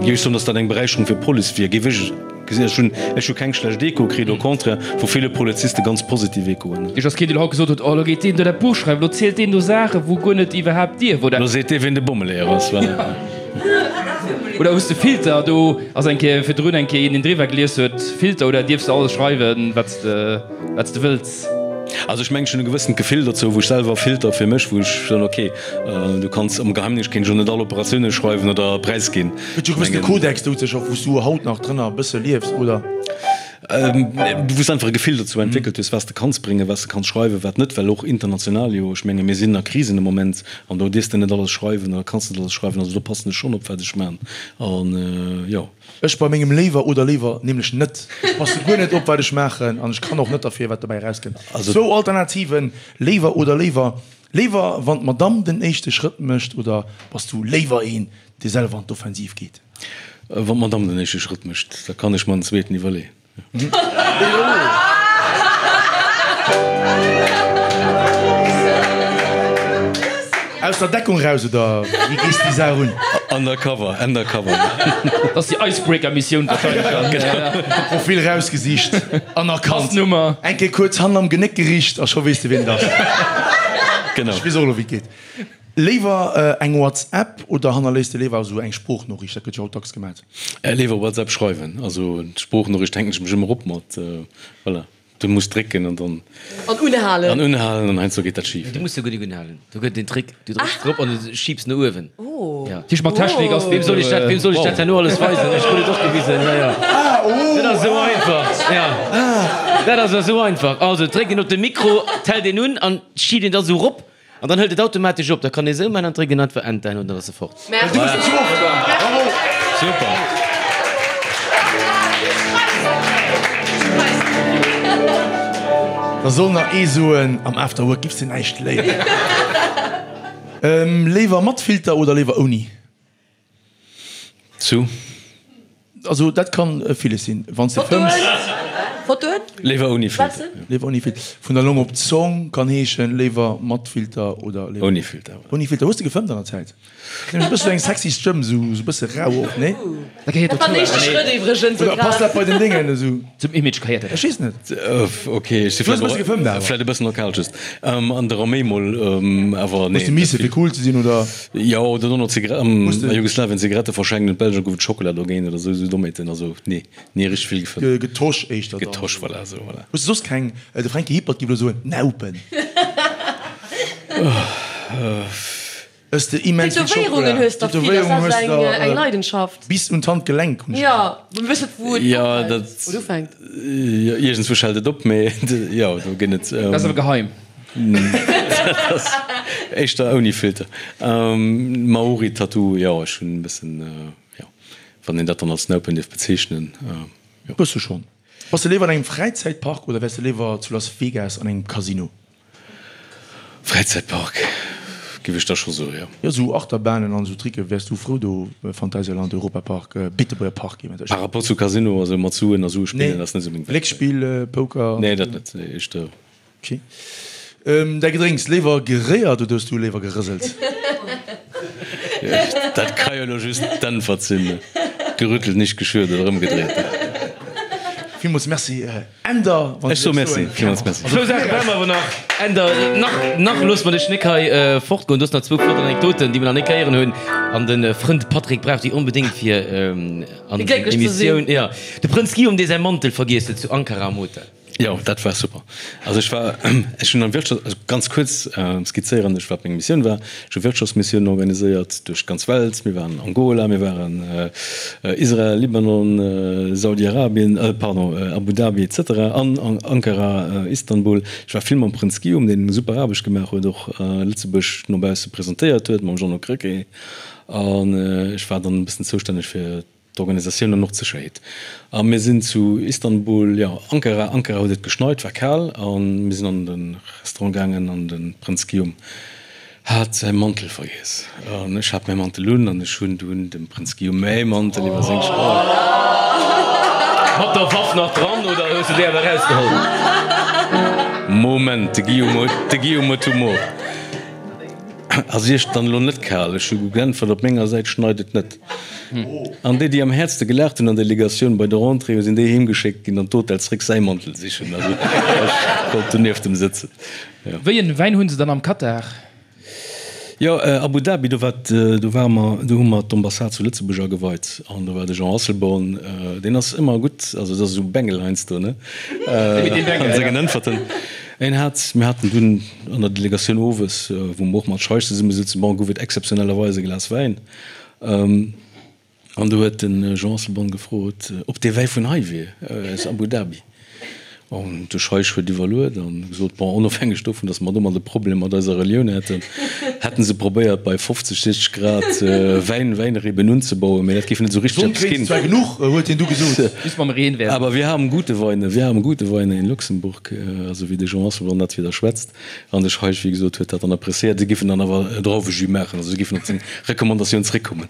géif ech soen, datt dat eng Beräicherung fir d'Police wier, géif ech gesinn. Ech hunn, ech hu keng schlecht Echoe kritt, au contraire, vu ville Poliziste ganz positiv Echoen. Iech ass keen, deen haut gesot huet, oh, elo geet deen do dat Buch schreiwen, elo zielt deen do Saachen, wou guer net iwwerhaapt dierf, oder? Elo seet dee, wien de Bommeleeër ass, voilà. Oder hues de Filter? Do ass eng Kéier virdrun eng Kéier een, deen driwwer gelies huet, Filter, oder dierfs de alles schreiwen, wat s de, wat s de wëlls? Also ech mengen, ech hunn e gewëssent Gefill dozou, wou ech selwer Filter fir mech, wou ech soen, ok, du kanns am Geheimdéngscht kéint ech och net all Operatioune schreiwen oder präisginn. Gëtt jo e gewëssene Kodex dozou, och wou s du haut nach drënner e bësse liefs, oder? Wou s de einfach e Gefill dozou entwéckelt hues, wat s de kanns bréngen, wat s de kanns schreiwen, wat net, well och international jo, ech menge mir sinn a Krisen de Moment an do dierfs de net alles schreiwen oder kanns net alles schreiwen, also do passen ech schonn op, wat ech man an jo. Ech bei mengem léiwer oder léiwer nämlech net. Ech passe guer net op wat ech maachen an ech kann och net derfir wat dobäi erauskënnt. Zwou Alternativen, léiwer oder léiwer. Léiwer wann d'Madamm den éischte Schrëtt mécht oder bass du léiwer een dee selwer an d'Offensiv geet? Wann d'Madamm den éischte Schrëtt mécht, da kann ech mer den zweeten iwwerleeën. Aus der Deckung raus oder wéi gees déi Saach un? Undercover, undercover. Dat ass déi Icebreaker-Missioun wahrscheinlech dann. Profil rausgesicht an erkannt. Passnummer. Eng Kéier kuerz hannen am Genéck gericht a scho weess de wien et ass. Genau. Ech weess och elo wéi et geet. Léiwer eng WhatsApp oder hannerléisst de léiwer esou eng Sproochnoriicht? Dat gëtt jo haut dacks gemat. Léiwer WhatsApp schreiwen. Also d'Sproochnoriicht hänken ech mech ëmmer op mat. Voilà, du muss drécken an dann. An unhalen. An unhalen an heiansdo geet dat schif. Du muss jo guer nik unhalen. Do gëtt et en Trick, du drécks drop an du schiebs no uewen. Oh. Ja. Tisch mat Technik ass. Weem soll ech dat, weem soll ech dat herno alles weisen? Ech krut et och gewisen. Ja, ja. Dat ass esou einfach. Ja. Dat ass esou einfach. Also dréckt een op de Mikro, d'hält een un an schiebt een da sou rop. An dann hëlt et automatesch op. Da kann ee sou man an dréckt een einfach Enter an dann ass e fort. Merci. Bravo. Super. Da soll nach ee soen, am Afterwork giffs de näischt léieren. Léiwer mat Filter oder léiwer ouni? Zu? Also dat kann villes sinn. Wann s de fëmms. Fotoen? Léiwer ouni Filter. Léiwer ouni Filter. Vun der Long op d'Zong kann heeschen, léiwer mat Filter oder léiwer. Ouni Filter. Ouni Filter. Hues de gefëmmt an der Zäit? Nämlech e bësse eng sexy Stëmm, esou e bësse rau och, nee? Dat gehéiert Dat war dozou den éischte awer, nee. Schrëtt iwwregens, Oder passt dat bei den Déngen esou? Zum Image gehéiert dat Ech weess net. Ok, ech si Du hues e bësse gefëmmt awer. vläit e bëssen nostalgesch. An der Arméi mol, awer nee. Hues de misse fir cool ze sinn, oder? Jo, oder dono Zigaretten, Hues de. a Jugoslawien Zigarette verschenkt, an d'Belger gouf et Schockela dogéint oder esou, esou Dommheeten. Also nee, ni richteg vill gefëmmt. Getosch éischter dann. Getosch, voilà, esou, voilà. Hues de soss keng, de Franky Hippert géif elo soen, Naupen. Ëss de immens vill Schokola. Tätowéierungen hues der vill, dat ass eng eng Leidenschaft. Bis un d'Handgelenk hunn ech. Jo, mä wëss net wou et ophält oder ufänkt. Jo, iergendswou hält et op, mee jo, do ginn et. Dat ass awer geheim. Dat ass éischter ouni Filter. Maori-Tattoo, jo, ech hunn e bëssen, jo, wann een dat dann als Naupen dierf bezeechnen, jo. Bësse schonn. Bass de léiwer an engem Fräizäitpark oder wäers de léiwer zu Las Vegas an engem Casino? Fräizäitpark, giff ech da scho soen, jo. Jo, sou Achterbahnen an sou Tricke wäers du frou do, Phantasialand, Europapark, Beetebuerger Park eventuell. Par rapport zu Casino, also mat Suen a Sue spillen ass net sou meng Welt. Glécksspill, Poker? Nee, dat net, nee, éischter. Ok. Däi Gedrénks, léiwer geréiert oder hues du léiwer gerëselt? Dat ka jo elo just d'Äntwert sinn, gerüttelt, nicht geschürt oder ëmgedréit. Villmools Merci Änder. Ech soe Merci, villmools Merci. Zwou Saache brauche mer awer nach, Änder. Nach, nach loosse mer dech nik hei fortgoen. Du hues nach zwou flott Anekdoten, déi mer nach nik héieren hunn. An de Frënd Patrick brauch déi onbedéngt fir an Fir glécklech ze sinn. Emissioun. Jo, de Prënz Guillaume, dee säi Mantel vergiess huet zu Ankara am Hotel. Jo, dat war super. Also ech war, ech hunn am Wirtschafts-, also ganz kuerz skizzéieren ech, wat meng Missioun war. Ech hu Wirtschaftsmissiounen organiséiert duerch d'ganz Welt. Mir waren Angola, mir waren Israel, Libanon, Saudi-Arabien, pardon, Abu Dhabi et cetera an Ankara, Istanbul. Ech war vill mam Prënz Guillaume, deen eng super Aarbecht gemaach huet, och Lëtzebuerg no bausse presentéiert huet, mam Jeannot Krecké. An ech war dann e bëssen zoustänneg fir d'Organisatioun an och d'Sécherheet. A mir sinn zu Istanbul, jo, Ankara, Ankara huet et geschneit, war kal, a mir sinn an de Restaurant gaangen an de Prënz Guillaume hat säi Mantel vergiess. An ech hat mäi Mantel un an ech hunn dunn dem Prënz Guillaume mäi Mantel iwwer seng Schëller. Mat der Waff nach dran oder hues du déi awer erausgeholl? Moment, de Guillaume huet, de Guillaume huet Humor. Ass Iech dann elo net kal? Ech hu geäntwert, Op menger Säit schneit et net. An déi, déi am häertste gelaacht hunn an der Delegatioun bei der Rentrée, sinn déi heemgeschéckt ginn an d'Hotel zréck säi Mantel sichen. Also ech konnt do nieft em sëtzen. Jo. Wéi en Wäin hunn se dann am Katar? Jo, Abu Dhabi, do war, do ware mer, do hu mer d'Ambassade zu Lëtzebuerg ageweit an do war de Jean Asselborn, deen ass ëmmer gutt, also et ass esou Bengel heiansdo, ne, an sengen Äntwerten. En hat, mir haten dunn an der Delegatioun owes, wou mer och mat Scheich zesumme souzen, bon, gouf et exzeptionellerweis e Glas Wäin. An do huet de Jean Asselborn gefrot, ob dee Wäi vun hei wier, aus Abu Dhabi. An de Scheich huet iwwerluet a gesot, bon, onofhängeg dovun, datt mer domat e Problem mat eiser Relioun hätten, hätten se probéiert, bei 50, 60 Grad Wäin, Wäinreben unzebauen, mä dat géif net esou richteg Sonn eppes kréint ginn. se zwar genuch, huet hien du gesot. Just mam Reen wär se. Aber wir haben gute Weine, wir haben gute Weine in Luxemburg, also wéi de Jean Asselborn dat wieder schwätzt. An de Scheich, wéi gesot, huet dat dann appréciéiert. Si géifen dann awer e Drauwejus maachen, also si géifen op seng Recommandatioun zréckkommen.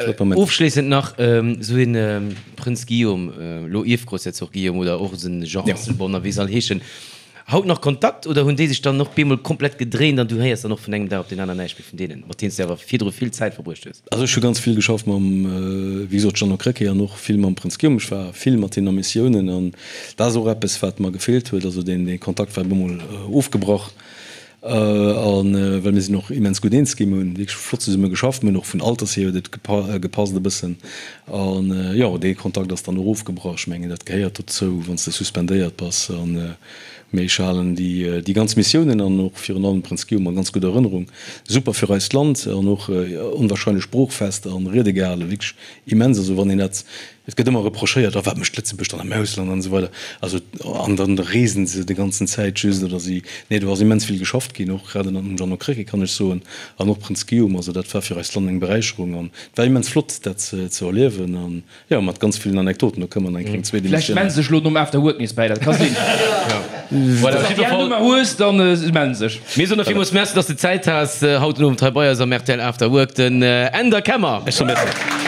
Flott Moment. Ofschléissend nach, esou een Prënz Guillaume, elo Ierfgroussherzog Guillaume oder och esou en Jean Asselborn a wéi se all heeschen, haut nach Kontakt oder hunn déi sech dann och bemol komplett gedréint an du héiers dann och vun engem Dag op deen aneren näischt méi vun deenen, mat deenen s de awer virdru vill Zäit verbruecht hues? Also ech hu ganz vill geschafft mam, wéi gesot, Jeannot Krecké an och vill mam Prënz Guillaume. Ech war vill mat hinnen a Missiounen an dat ass och eppes, wat mer gefeelt huet. Also deen Kontakt war bemol ofgebrach a well mir sinn och immens gutt eens ginn. Mir hunn wierklech flott zesumme geschafft. Mir hunn och vun Alters hier huet et gepasst e bëssen. An jo, dee Kontakt ass dann och ofgebrach. Ech mengen, dat gehéiert dozou, wann s de suspendéiert bass. An Mee ech halen déi ganz Missiounen an och virun allem Prënz Guillaume a ganz gudder Erënnerung. Super fir eist Land an och onwahrscheinlech sproochfest a Riede gehalen, wierklech immens. Also wann een dat, et gëtt ëmmer reprochéiert, oh wat mécht Lëtzebuerg dann am Ausland an esou weider, also an dann reesen se déi ganzen Zäit just oder si, nee do ass immens vill geschafft ginn, och grad ënnert dem Jeannot Krecké kann ech soen an och Prënz Guillaume. Also dat war fir eist Land eng Beräicherung an et war immens flott dat ze erliewen an Jo, mat ganz villen Anekdoten, do kënne mer nach eng kleng zweet Vläicht Emissioun mellen se sech elo nom After Work nees bäi, dat ka sinn. Voilà, Wann s de déi Nummer hues, dann mellen se sech. Mir soen der villmools Merci, dass de Zäit has haut den Owend hei bei eis am rtl After Work, den Änder Kemmer. Ech soe Merci.